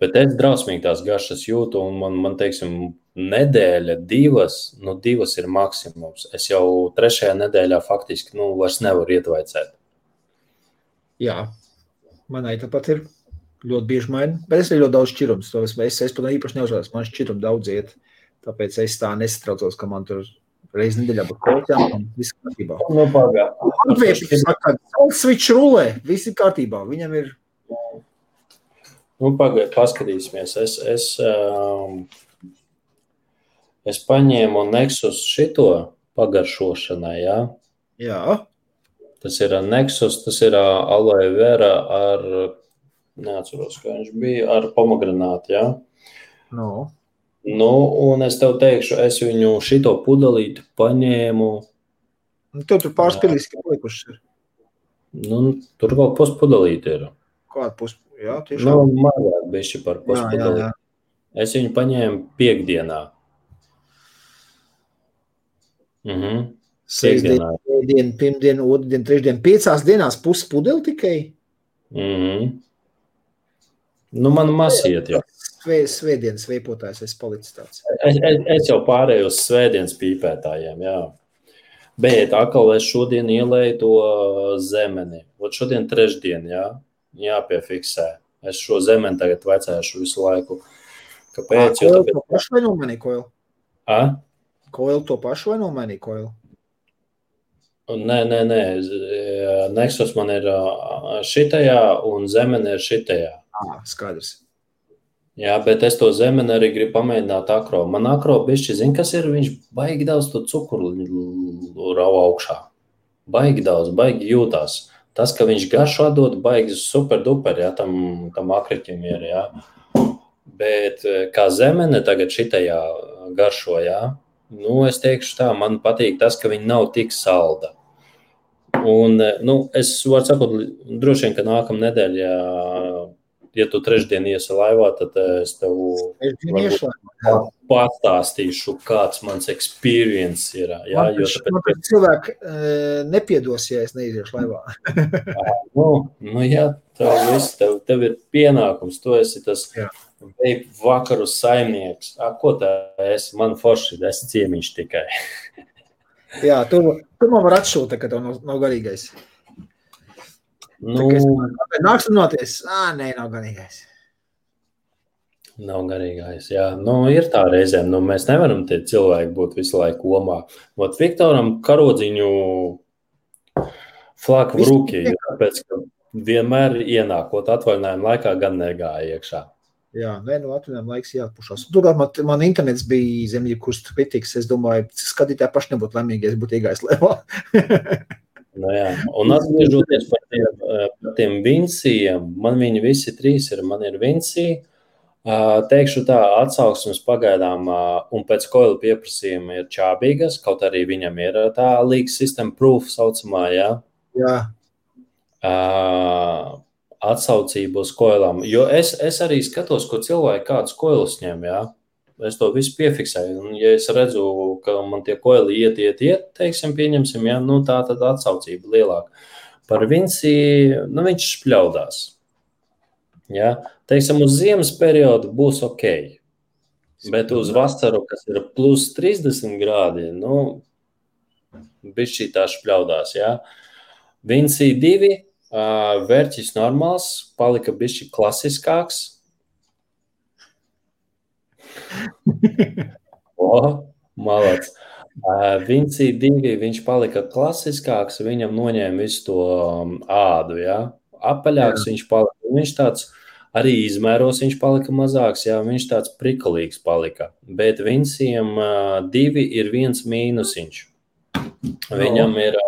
Bet es drausmīgi tās garšas jūtu, un man teiksim, nedēļa, divas ir maksimums. Es jau 3. nedēļā faktiski vairs nevaru ietvaicēt. Jā, manai tāpat ir ļoti bieži maina, bet es arī ļoti daudz šķirums. Es to īpaši neuzvārds, man šķirum daudz iet, tāpēc es tā nesatraucos, ka man tur reizi nedēļā būtu kolķām un viss kārtībā. Latvieši saka, salsvičs rulē, viss ir kārtībā, viņam ir... Pagaid, paskatīsimies. Es paņēmu Nexus šito pagaršošanai, jā? Jā. Tas ir Nexus, tas ir aloe vera ar, neatceros, kā viņš bija, ar pomegranātu, jā? No. Un es tev teikšu, es viņu šito pudelīti paņēmu. Tev tur pārspilīs, ka palikušas ir. Tur vēl puspudelīti ir. Kāda puspudelīti? Jā, tiešām. Mazāk bišķi par puspudelīti. Jā. Es viņu paņēmu piekdienā. Sēdien, pirmdien, otrdien, trešdien, 5 dienās puspudeli tikai? Man masiet, jā. Svētdienas veipotājs es palicis tāds. Es jau pārēju uz svētdienas pīpētājiem, jā. Bet atkal es šodien ielēju to zemeni. Šodien trešdien, jā. Jāpiefiksē. Es šo zemeni tagad vecēšu visu laiku. Kāpēc? Koil to pašu vai nomainīja Koil? Koil to pašu vai nomainīja Koil? Nē. Nexus man ir šitajā un zemeni ir šitajā. Skaidrs. Jā, bet es to zemeni arī gribu pamēģināt akro. Man akro bišķi, zin, kas ir? Viņš baigi daudz to cukuru rauj augšā. Baigi daudz, baigi jūtās. Tas, ka viņš garšo dod, baigi super duper, jā, tam akriķim ir, jā. Bet kā zemene tagad šitajā garšo, jā, es teikšu tā, man patīk tas, ka viņi nav tik salda. Un, es varu sakot, droši vien, ka nākamā nedēļa, ja tu trešdien iesi laivā, tad es tev pastāstīšu, kāds mans experience ir. Jā, man cilvēki nepiedos, ja es neiziešu laivā. Jā, tev ir pienākums, tu esi tas vakaru saimnieks. Ko tā esi? Man forši, es ciemiņš tikai. Jā, tu man var atšūt, ka tev nav garīgais. Nāks runāties? Nē, nav garīgais. Nav garīgais, jā. Ir tā reizēm, mēs nevaram tie cilvēki būt visu laiku omā. Viktoram karodziņu flaku v ruki, tāpēc, ka vienmēr ienākot atvaļinājumu laikā gan negāja iekšā. Jā, atvaļinājumu laiks jāatpušās. Turklāt man internets bija zem jebkuras kritikas, es domāju, skatītāji paši nebūtu laimīgi, ja es būtu iegājis levā. Jā, un atgriežoties par tiem Vincijiem, man viņi visi 3 ir, man ir Vincija, teikšu tā, atsauksmes pagaidām un pēc Koila pieprasījuma ir čābīgas, kaut arī viņam ir tā leak system proof saucamā, jā. Jā. Atsaucību uz Koilam, jo es arī skatos, ko cilvēki kādus Koilus ņem, jā. Es to visu piefiksēju, un ja es redzu, ka man tie Koili iet, teiksim, pieņemsim, jā, tā tad atsaucība lielāka. Par Vinci, viņš špļaudās. Jā, teiksim, uz ziemas periodu būs ok, bet uz vasaru, kas ir plus 30 grādi, bišķī tā špļaudās, jā. Vinci 2, vērķis normāls, palika bišķi klasiskāks. Malac. Vinci 2, viņš palika klasiskāks, viņam noņēma visu to ādu, jā. Apaļāks viņš palika, viņš tāds arī izmēros, viņš palika mazāks, jā, viņš tāds prikulīgs palika. Bet Vinciem 2 ir 1 mīnusiņš. Viņam ir,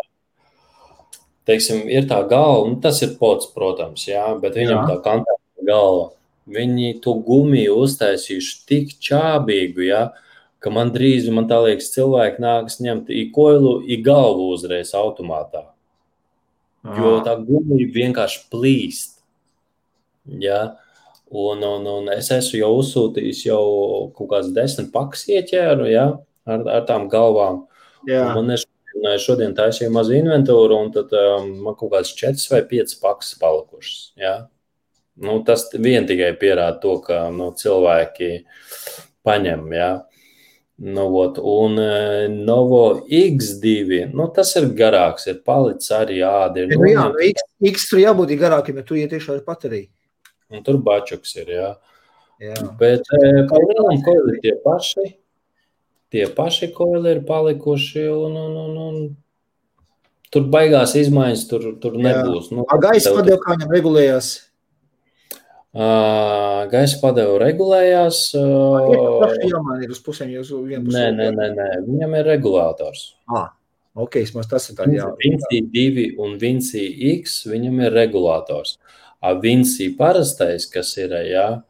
teiksim, ir tā galva, tas ir pods, protams, jā, bet viņam tā kantēta galva. Viņi to gumiju uztaisījuši tik čābīgu, ja, ka man drīz, man tā liekas, cilvēki nākas ņemt i Koilu, i galvu uzreiz automātā. Jo tā gumija vienkārši plīst. Ja. Un es esmu jau uzsūtījis jau kaut kāds 10 pakas ieķēru, ja, ar tām galvām. Jā. Un man ir Un šodien taisīju mazu inventūru, un tad man kaut kāds 4 vai 5 pakas palikušas. Ja? Nu, tas vien tikai pierāda to, ka cilvēki paņem. Ja? Nu, un Novo X2, tas ir garāks, ir palicis arī ādi. X tur jābūt garākiem, ja tu iet iekšā ar bateriju. Un tur bačuks ir, jā. Bet palielam koili ir tie paši koili ir palikuši, un tur baigās izmaiņas, tur nebūs. Gaisa padeva, kā viņam regulējās? Gaisa padeva regulējās. Jāmaina ir uz pusēm, jūs vienpusē. Nē, viņam ir regulātors. Ok, tas ir tā, jā. Vinci 2 un Vinci X, viņam ir regulātors. Vinci parastais, kas ir, jā,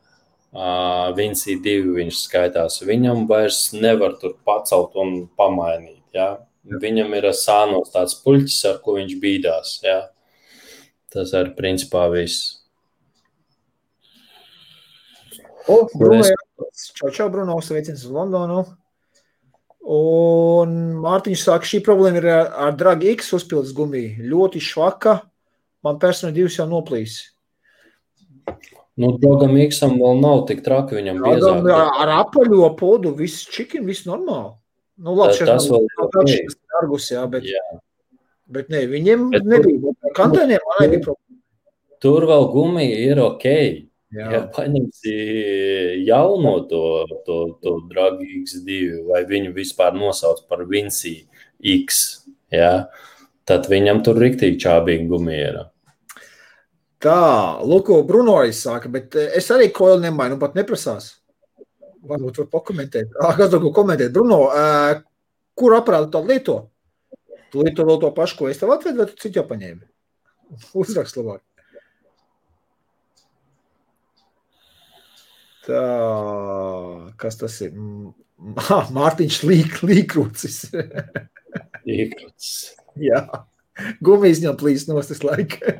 Vinci 2 viņš skaitās, viņam vairs nevar tur pacelt un pamainīt, jā. Viņam ir sānos tāds puļķis, ar ko viņš bīdās, jā. Tas ir principā viss. Bruno, čau, Bruno, sveiciens uz Londonu. Un Mārtiņš saka, šī problēma ir ar Dragi X uzpildes gumiju. Ļoti švaka, man personīgi 2 jau noplīs. Dragam X-am vēl nav tik traki, viņam biezāk. Ar apaļo podu, viss čikin, viss normāli. Labi, tas vēl ir argus, jā, bet ne, viņiem nebija. Kantēniem man nebija problēma. Tur vēl gumija ir okei. Ja paņemsi jauno to Dragi X2, vai viņu vispār nosauc par Vinci X, ja, tad viņam tur riktīgi čābīgi gumija ir. Tā, Luko, Bruno arī saka, bet es arī koili nemainu, pat neprasās. Varbūt var pakomentēt. Kāds var komentēt? Bruno, kur aparātu tādu lieto? Tu lieto vēl to pašu, ko es tev atvedu, vai tu citu jau paņēmi? Uzrakst labāk. Tā, kas tas ir? Mārtiņš Līkrūcis. Līkrūcis. Jā, gumijas viņam plīs nost tas laika.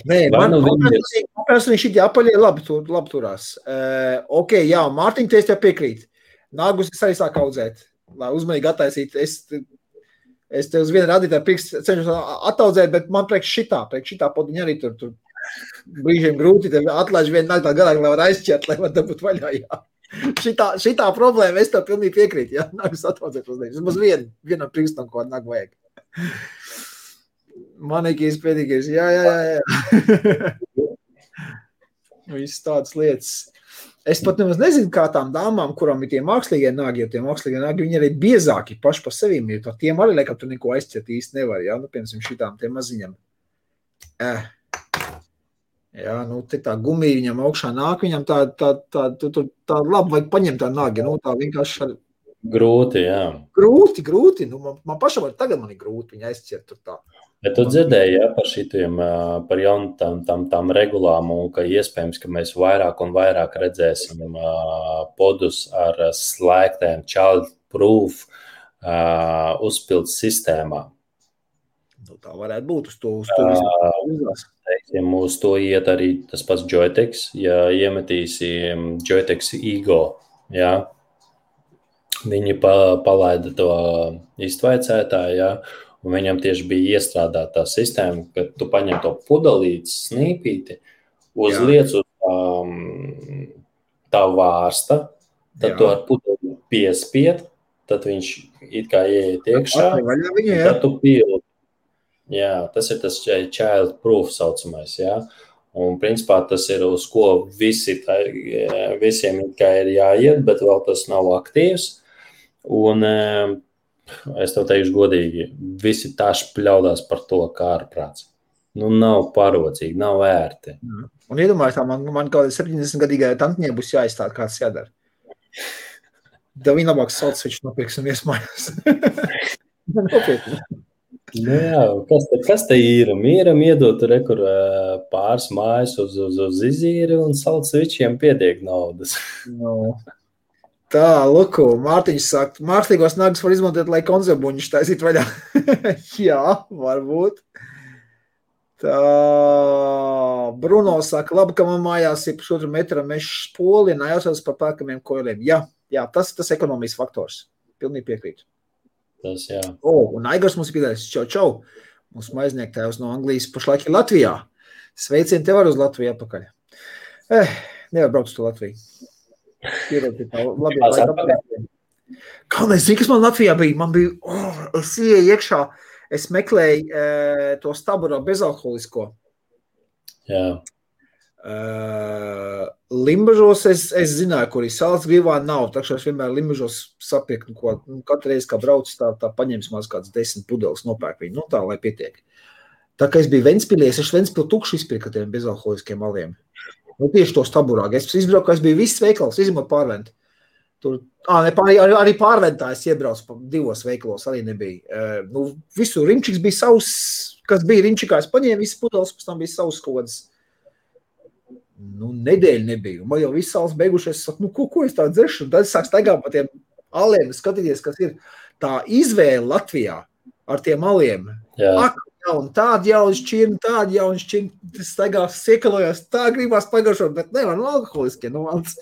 Nē, man personīgi šitie apaļie labi turās. Ok, jā, Mārtiņ, te es tev piekrīt. Nāgus es arī sāku audzēt, lai uzmanīgi attaisīt. Es te uz vienu radītāju cenšos attaudzēt, bet man priekš šitā podiņa arī tur brīžiem grūti, tev atlaiž vienu nāk tā garāk, lai var aizķert, lai var dabūt vaļā, jā. Šitā problēma, es tev pilnīgi piekrītu, jā, nākus attaudzēt uz nevis. Uz vienam prikstam, ko nāk vajag. Manikīs, pēdīgais, jā. Viss tādas lietas. Es pat nemaz nezinu, kā tām dāmām, kurām ir tie mākslīgie nāgi, jo tie mākslīgie nāgi, viņi arī biezāki paši pa sevīm, jo tiem arī laikam tu neko aizķert īsti nevar, jā, piemēram, šitām tiem maziņam. Jā, te tā gumija viņam augšā nāk, viņam tā labi vajag paņemt tā nāgi, tā vienkārši. Grūti, jā. Grūti, man pašam tagad man ir grūti viņa aizķert tur tā. Bet tu dzirdēji, jā, par šitiem, par jaunām regulām, un ka iespējams, ka mēs vairāk un vairāk redzēsim podus ar slēgtēm child-proof uzpildes sistēmām. Tā varētu būt uz to uzlās. Uz to iet arī tas pats Joytex, ja iemetīsi Joytex Ego, jā, viņi palaida to iztvaicētāju, jā, un viņam tieši bija iestrādāta tā sistēma, ka tu paņem to pudelītes snīpīti, uzliec uz tā vārsta, tad tu ar pudelīti piespied, tad viņš it kā ieiet iekšā, tad tu pildi. Jā, tas ir tas child-proof saucamais, jā. Un, principā, tas ir uz ko visiem kā ir jāiet, bet vēl tas nav aktīvs. Un es tev teikšu godīgi, visi tāši pļaudās par to kā ārprāts. Nav parocīgi, nav ērti. Un iedomājies, man kaut 70-gadīgai tantņai būs jāizstāda, kāds jādara. Tev viņa labāk salds, viņš nopirks un iesmājās. Nopietni. Jā, kas te ir? Mīram iedot rekur pāris mājas uz izīri un salds vičiem pietiek naudas. Tā, Luku, Mārtiņš saka, mākslīgos nagus var izmantot, lai konzerbuņus taisīt vaļā. Jā, varbūt. Tā, Bruno saka, labi, ka man mājās ir 1,5 metra mešs poli, un jāsauc par pērkamiem koiliem. Jā, Jā, tas ekonomijas faktors. Pilnīgi piekrītu. Tas, jā. Un Aigars mums ir piedāvājis. Čau. Mūsu maizniektājs no Anglijas pašlaik ir Latvijā. Sveicien tev arī uz Latviju atpakaļ. Nevar braukt uz to Latviju. Kā nezinu, kas man Latvijā bija? Man bija, es ieeju iekšā, es meklēju to staburo bezalkoholisko. Jā. Limbažos es zināju, kur ir Salzgrīvā nav, tā kā es vienmēr Limbažos sapirku, ko katru reizi, kā braucu, tā paņems maz kāds 10 pudeles nopērk viņu, tā, lai pietiek. Tā kā es biju Ventspilī, es Ventspili tukšu izpirku tiem bezalkoholiskiem aliem. Tieši to staburāk. Es izbrauku, es biju viss veikals, izņemot Pārventu. Tur, arī Pārventā es iebraucu 2 veikalos, arī nebija. Visu Rimčiks bija savs, kas bija Rimčikā, es paņēmu visas pudeles, pēc tam bija savs kodas. Nedēļa nebija. Man jau viss salas beigušies. Es saku, ko es tā dzeršu? Un tad es sāku staigāt pa tiem aliem, skatīties, kas ir tā izvēle Latvijā ar tiem aliem. Ak, jauni, tādi jauni šķirni, tādi jauni šķirni. Es staigās, siekalojos, tā gribās pagaršot, bet nevar, alkoholiskie, valsts.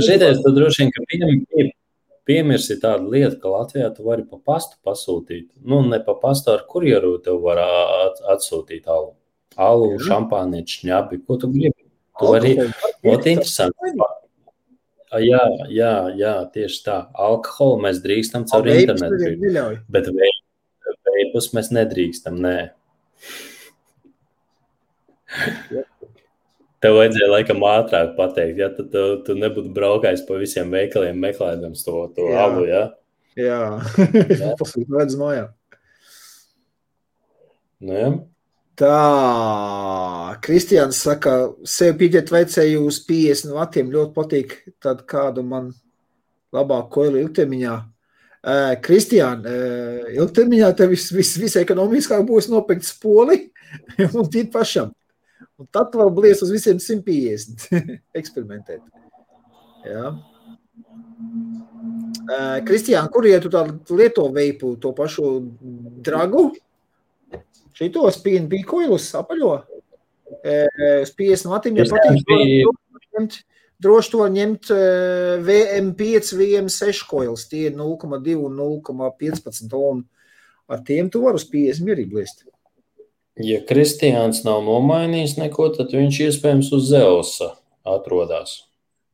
Šitais, tu droši vien, ka piemirsi tādu lietu, ka Latvijā tu vari pa pastu pasūtīt. Ne pa pastu, ar kurjeru tev var atsūtīt alu. Alu, šampānieti, šņabi, ko tu gribi? Tu vari, interesanti. Jā, tieši tā. Alkoholu mēs drīkstam caur internetu. Bet veipus mēs nedrīkstam, nē. Tev vajadzēja laikam ātrāk pateikt, ja tu nebūtu braukājis pa visiem veikaliem meklējams to alu, ja? Jā. Pasūti redz mājā. Jā. Tā, Kristiāns saka, sev pieķert vajadzēju uz 50 vatiem, ļoti patīk tad kādu man labāk koilu ilgtermiņā. Kristiān, ilgtermiņā tev viss ekonomiskāk būs nopirkt spoli un tīt pašam. Un tad tu var blies uz visiem 150 eksperimentēt. Jā. Kristiān, kur tu tā lieto veipu, to pašu dragu? Šitos PNP koilus apaļo uz 50 vatiem, ja patīk, droši to ņemt VM5, VM6 koilus, tie 0,2 un 0,15 un ar tiem tu var uz 50 mierīgi bliest. Ja Kristiāns nav nomainījis neko, tad viņš iespējams uz Zeusa atrodās.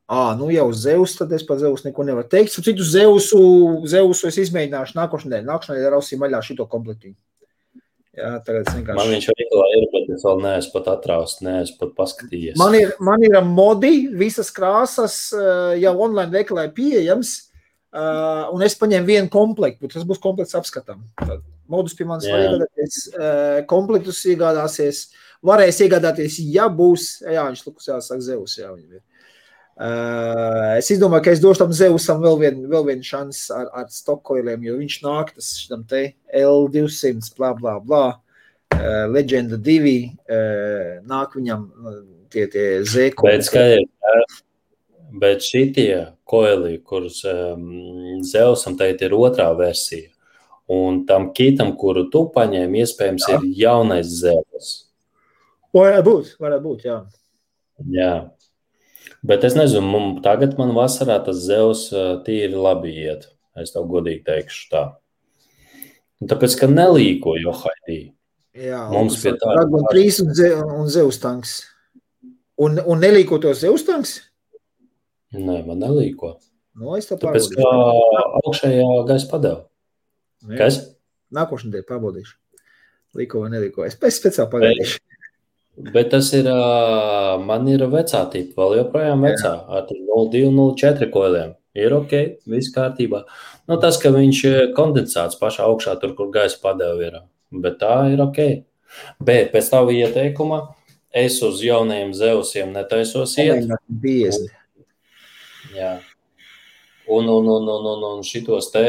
Jau uz Zeus, tad es par Zeus neko nevaru teikt. Citu Zeusu es izmēģināšu nākošanai rausīju maļā šito komplektiņu. Jā, tagad es vienkārši... Man viņš arī ir, bet es vēl neesmu pat atraust, neesmu pat paskatījies. Man ir modi, visas krāsas jau online veikalā pieejams, un es paņēmu vienu komplektu, tas būs komplekts apskatām. Modus pie manis var iegādāties, komplektus iegādāsies, varēs iegādāties, ja būs, viņš lukus jāsaka Zeus, viņam ir. Es izdomāju, ka es došu tam Zeusam vēl vienu šans ar stokkoiliem, jo viņš nāk tas šitam te L200, blā, blā, blā, Legenda 2, nāk viņam tie Z-koili. Bet šitie koili, kurus Zeusam teikt ir otrā versija, un tam kitam, kuru tu paņēmi, iespējams ir jaunais Zeus. Varētu būt, jā. Jā. Bet es nezinu, tagad man vasarā tas Zeus tīri labi iet. Es tev godīgi teikšu tā. Un tāpēc, ka nelīko Johaidī. Jā, mums pie tā. Dragon 3 un Zeus tanks. Un nelīko to Zeus tanks? Nē, man nelīko. Es tā tāpēc, ka augšējā gaisa padeva. Kas? Nākošana dēļ pārbaudīšu. Līko vai nelīko. Es speciāli pagaidīšu. Bet tas ir, man ir vecā tipa, vēl joprojām vecā, ar 0,2-0,4 koiliem. Ir ok, viss kārtībā. Tas, ka viņš kondensāts pašā augšā, tur, kur gaisa padeva ir, bet tā ir ok. Bet pēc tava ieteikuma es uz jaunajiem Zeusiem netaisos iet. Jā. Un šitos te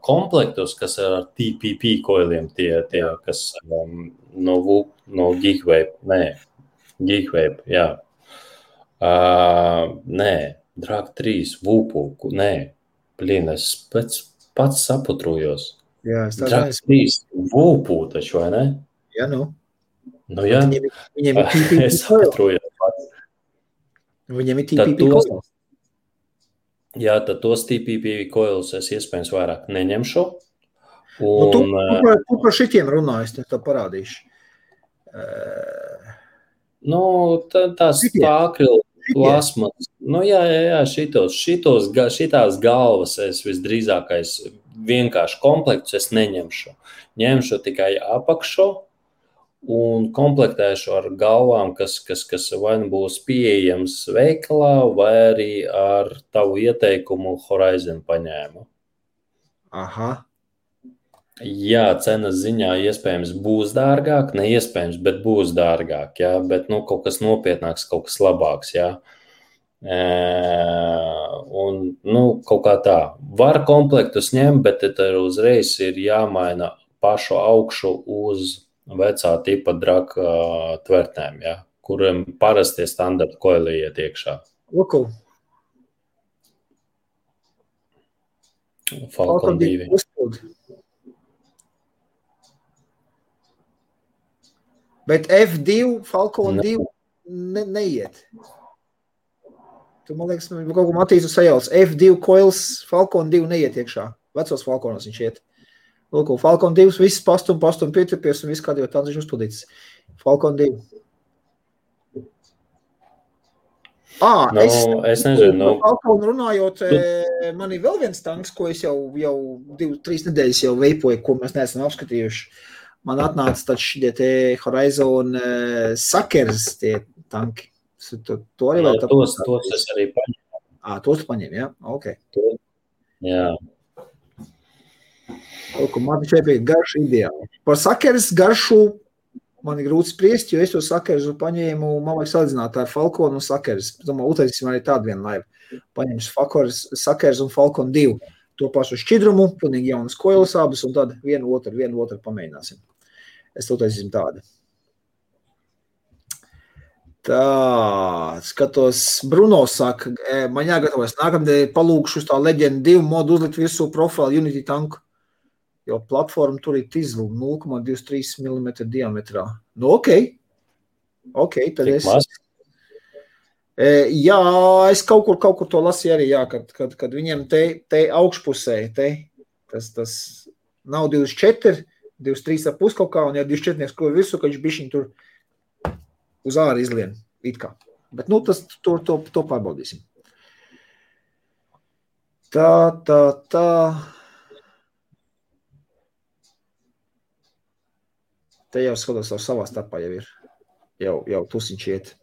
komplektus, kas ir ar TPP koiliem, tie kas no Geekvape, jā. Nē, Drag 3, Vupu, nē, es pats saputrujos. Jā, Drag 3, Vupu taču, vai ne? Jā, jā. Viņiem ir TPP es saputrujos pats. Viņam ir Tad TPP coils. Jā, tad tos TPP coils es iespējams vairāk neņemšu. Nu, tu Un, par šitiem runājas, tad parādīšu. Tās Šitie. akrilu plasmas. Jā, šitās galvas es visdrīzākais vienkārši komplektus es neņemšu. Ņemšu tikai apakšu un komplektēšu ar galvām, kas vai nu būs pieejams veikalā, vai arī ar tavu ieteikumu Horizon paņēmu. Aha. Jā, cenas ziņā iespējams būs dārgāk, ne iespējams, bet būs dārgāk, jā, bet kaut kas nopietnāks, kaut kas labāks, jā. Un, kaut kā tā. Var komplektus ņemt, bet tad uzreiz ir jāmaina pašu augšu uz vecā tipa draka tvertnēm, ja, kuriem parastie standarta koili iet iekšā. Luku. Falcon 2. Bet F2, Falcon 2 neiet. Tu, man liekas, kaut ko Matīsu sajauc. F2 coils, Falcon 2 neiet iekšā. Vecos Falconos viņš iet. Lūk, Falcon 2, viss pastum pieturpies un viss kādi jau tāds viņš uzpildīts. Falcon 2. Es nezinu. Falcon runājot, man ir vēl viens tanks, ko es jau 2-3 nedēļas jau veipoju, ko mēs neesam apskatījuši. Man atnāca taču šitie te Horizon Suckers tie tanki. To arī vēl tos es arī paņēmu. Tos tu paņem, jā? Ok. Jā. Man šeit bija garšu ideāli. Par Suckers garšu man ir grūti spriest, jo es to Suckersu paņēmu, man vajag salīdzināt ar Falcon un Suckers. Domāju, utaisīsim arī tādu vienu laivu. Paņemšu Suckers un Falcon 2. To pašu šķidrumu, pilnīgi jaunas koilas abas, un tad vienu otru pamēģināsim. Es to utaisīsim tādu. Tā, skatos, Bruno saka, man jāgatavojas. Nākamdēļ palūkšu uz tā Legend 2 modu uzlikt virsū profilu Unity tanku. Jo platforma tur ir tizlu 0,23 mm diametrā. Ok, tad Tik es... maz? Jā, es kaut kur to lasīju arī, jā, kad viņiem te augšpusē, tas nav 24, 23,5 kaut kā, un ja 24 ko visu, ka viņš bišķiņ tur uz āru izlien, it kā. Bet, to pārbaudīsim. Tā. Te jau skatos savā starpā jau ir. Jau tusiņš iet.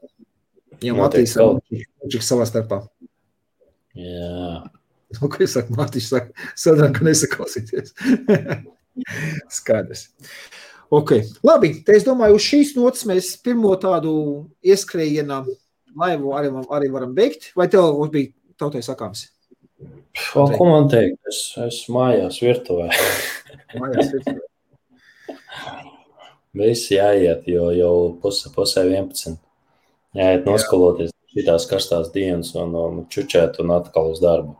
Jau Matīs savā starpā. Jā. Ko es saku? Matīs saka, sadrām, ka nesaklausīties. Skaidrs. Ok. Labi, te es domāju, uz šīs notas mēs pirmo tādu ieskrējienā laivu arī varam beigt. Vai tev bija tautai sakāms? Ko man teikt? Es mājās virtuvē. Mājās virtuvē. Visi jāiet, jo jau pusē 11. Jāiet noskaloties šitās karstās dienas un čučēt un atkal uz darbu.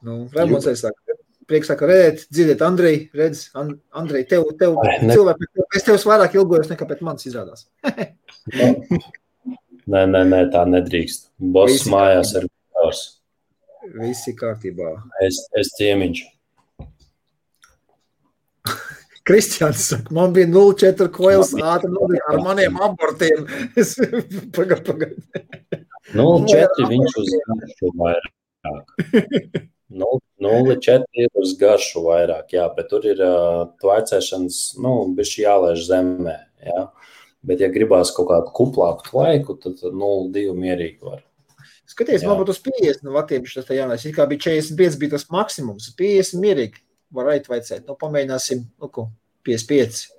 Raimonds arī saka, prieks saka, dzirdēt, Andrej, redz, Andrej, tev cilvēki, es tevs vairāk ilgojos nekā pēc manis izrādās. Nē, tā nedrīkst. Boss mājās ir kārs. Visi kārtībā. Es ciemiņš. Kristiāns saka, man bija 0,4 coils ātri ar maniem abortiem. Pagad. 0,4 viņš uz garšu vairāk. 0,4 ir uz garšu vairāk, jā, bet tur ir tvaicēšanas, bišķi jālaiž zemē, jā. Bet, ja gribās kaut kādu kuplāku tvaiku, tad 0,2 mierīgi var. Skaties, man būtu uz 50 vatiem šis tā jānais. It kā bija 45, bija tas maksimums. 50 mierīgi var aitvaicēt. Pamēģināsim, 55.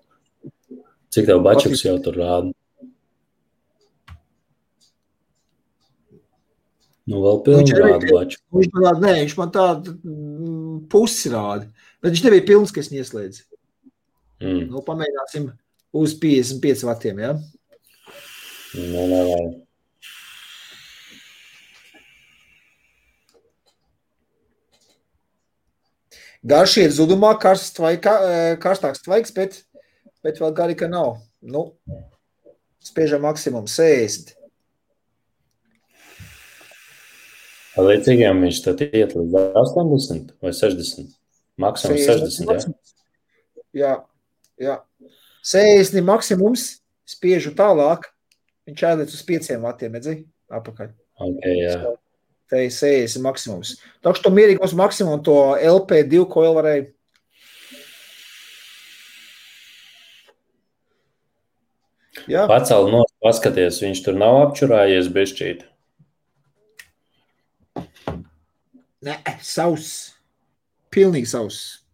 Cik tev bačuks jau tur rāda? Vēl pilni rāda baču. Viņš man tādu pusi rāda. Bet viņš nebija pilns, ka es ieslēdzu. Pamēģināsim uz 55 vatiem, jā? Nē. Garš iet zudumā, karstāks tvaiks, bet vēl gari, ka nav. Spiežam maksimum 60. Līdzīgiem viņš tad iet līdz 80 vai 60? Maksimums 60, jā? Jā. 60 maksimums, spiežu tālāk, viņš ēdēc uz 5 vatiem, redzi, apakaļ. Ok, jā. Te ir 60 maksimums. Tā, ka to mierīgi mums maksimum to LP2 coil varēja. Jā. Pacēl no paskaties, viņš tur nav apčurājies bišķīt. Nē, sauss. Pilnīgi sauss.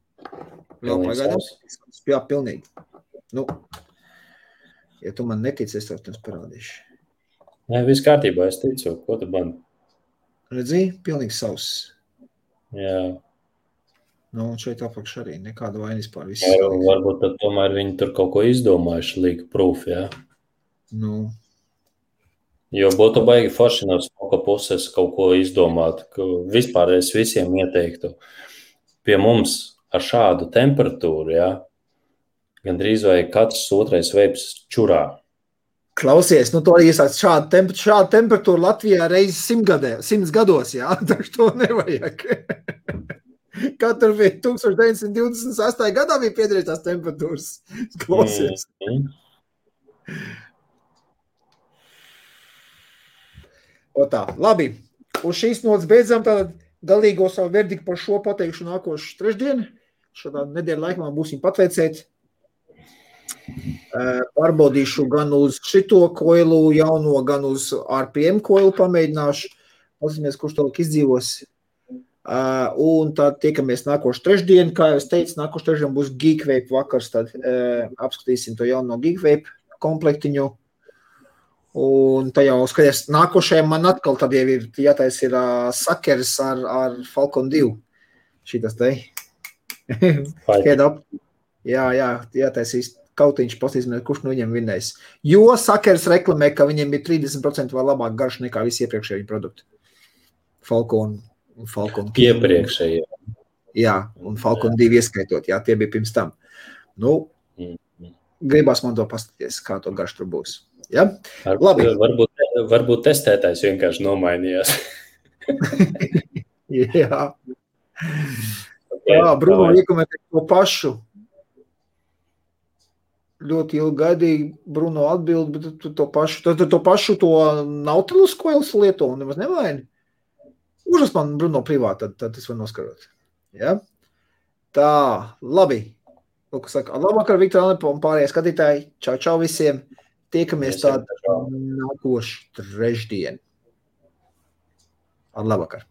Vēl pagaidām. Jā, pilnīgi. Nu, ja tu man netici, es tev parādīšu. Nē, viss kārtībā, es ticu. Ko tu man? Redzi, pilnīgi sauss. Jā. Nu, un šeit apakš arī nekāda vainas pār visu. Jā, varbūt tad tomēr viņi tur kaut ko izdomājuši, leak proof, jā? Nu. Jo būtu baigi forši no smoka puses kaut ko izdomāt, ka vispār es visiem ieteiktu. Pie mums ar šādu temperatūru, jā, gandrīz vai katrs otrais veips čurā. Klausies, nu to iesāc šādu temperatūru Latvijā reiz 100 gados, jā, taču to nevajag. Katru bija 1928. gadā bija piedrītās temperatūras. Klausies. O tā, labi. Uz šīs notas beidzam tātad galīgo savu verdiktu par šo pateikšu nākošu trešdienu. Šādā nedēļa laikā būsim patveicēt. Pārbaudīšu gan uz šito koilu jauno, gan uz RPM koilu pamēģināšu. Paskatīsimies, kurš tālāk izdzīvos. Un tad tiekamies nākošu trešdienu. Kā jau es teicu, nākošu trešdienu būs Geekvape vakars. Tad apskatīsim to jauno Geekvape komplektiņu. Un tā jau skaties, nākošajam man atkal tad jau ir jātais ir sakers ar Falcon 2. Šitas te. Head up. Jā, jātaisīs kautiņš, pastīsimies, kurš no viņiem vinnēs. Jo sakers reklamē, ka viņiem ir 30% vēl labāk garš nekā visi iepriekšēji produkti. Falcon. Iepriekšēji. Jā, un Falcon 2 ieskaitot, jā, tie bija pirms tam. Nu, gribās man to paskatīties, kā to garš tur būs. Ja? Labi. Varbūt testētājs vienkārši nomainījās. Jā. Bruno iekomentē to pašu. Ļoti ilgi gaidīja Bruno atbild, bet tu to pašu to Nautilus koilus lieto un nemaz nevaini. Užas man Bruno privāti, tad es varu noskarot. Ja? Tā, labi. Lūk, saka, labvakar, Viktor Alepo un pārējie skatītāji. Čau visiem. Tiekamies tādu nākošu trešdienu. Ar labvakar.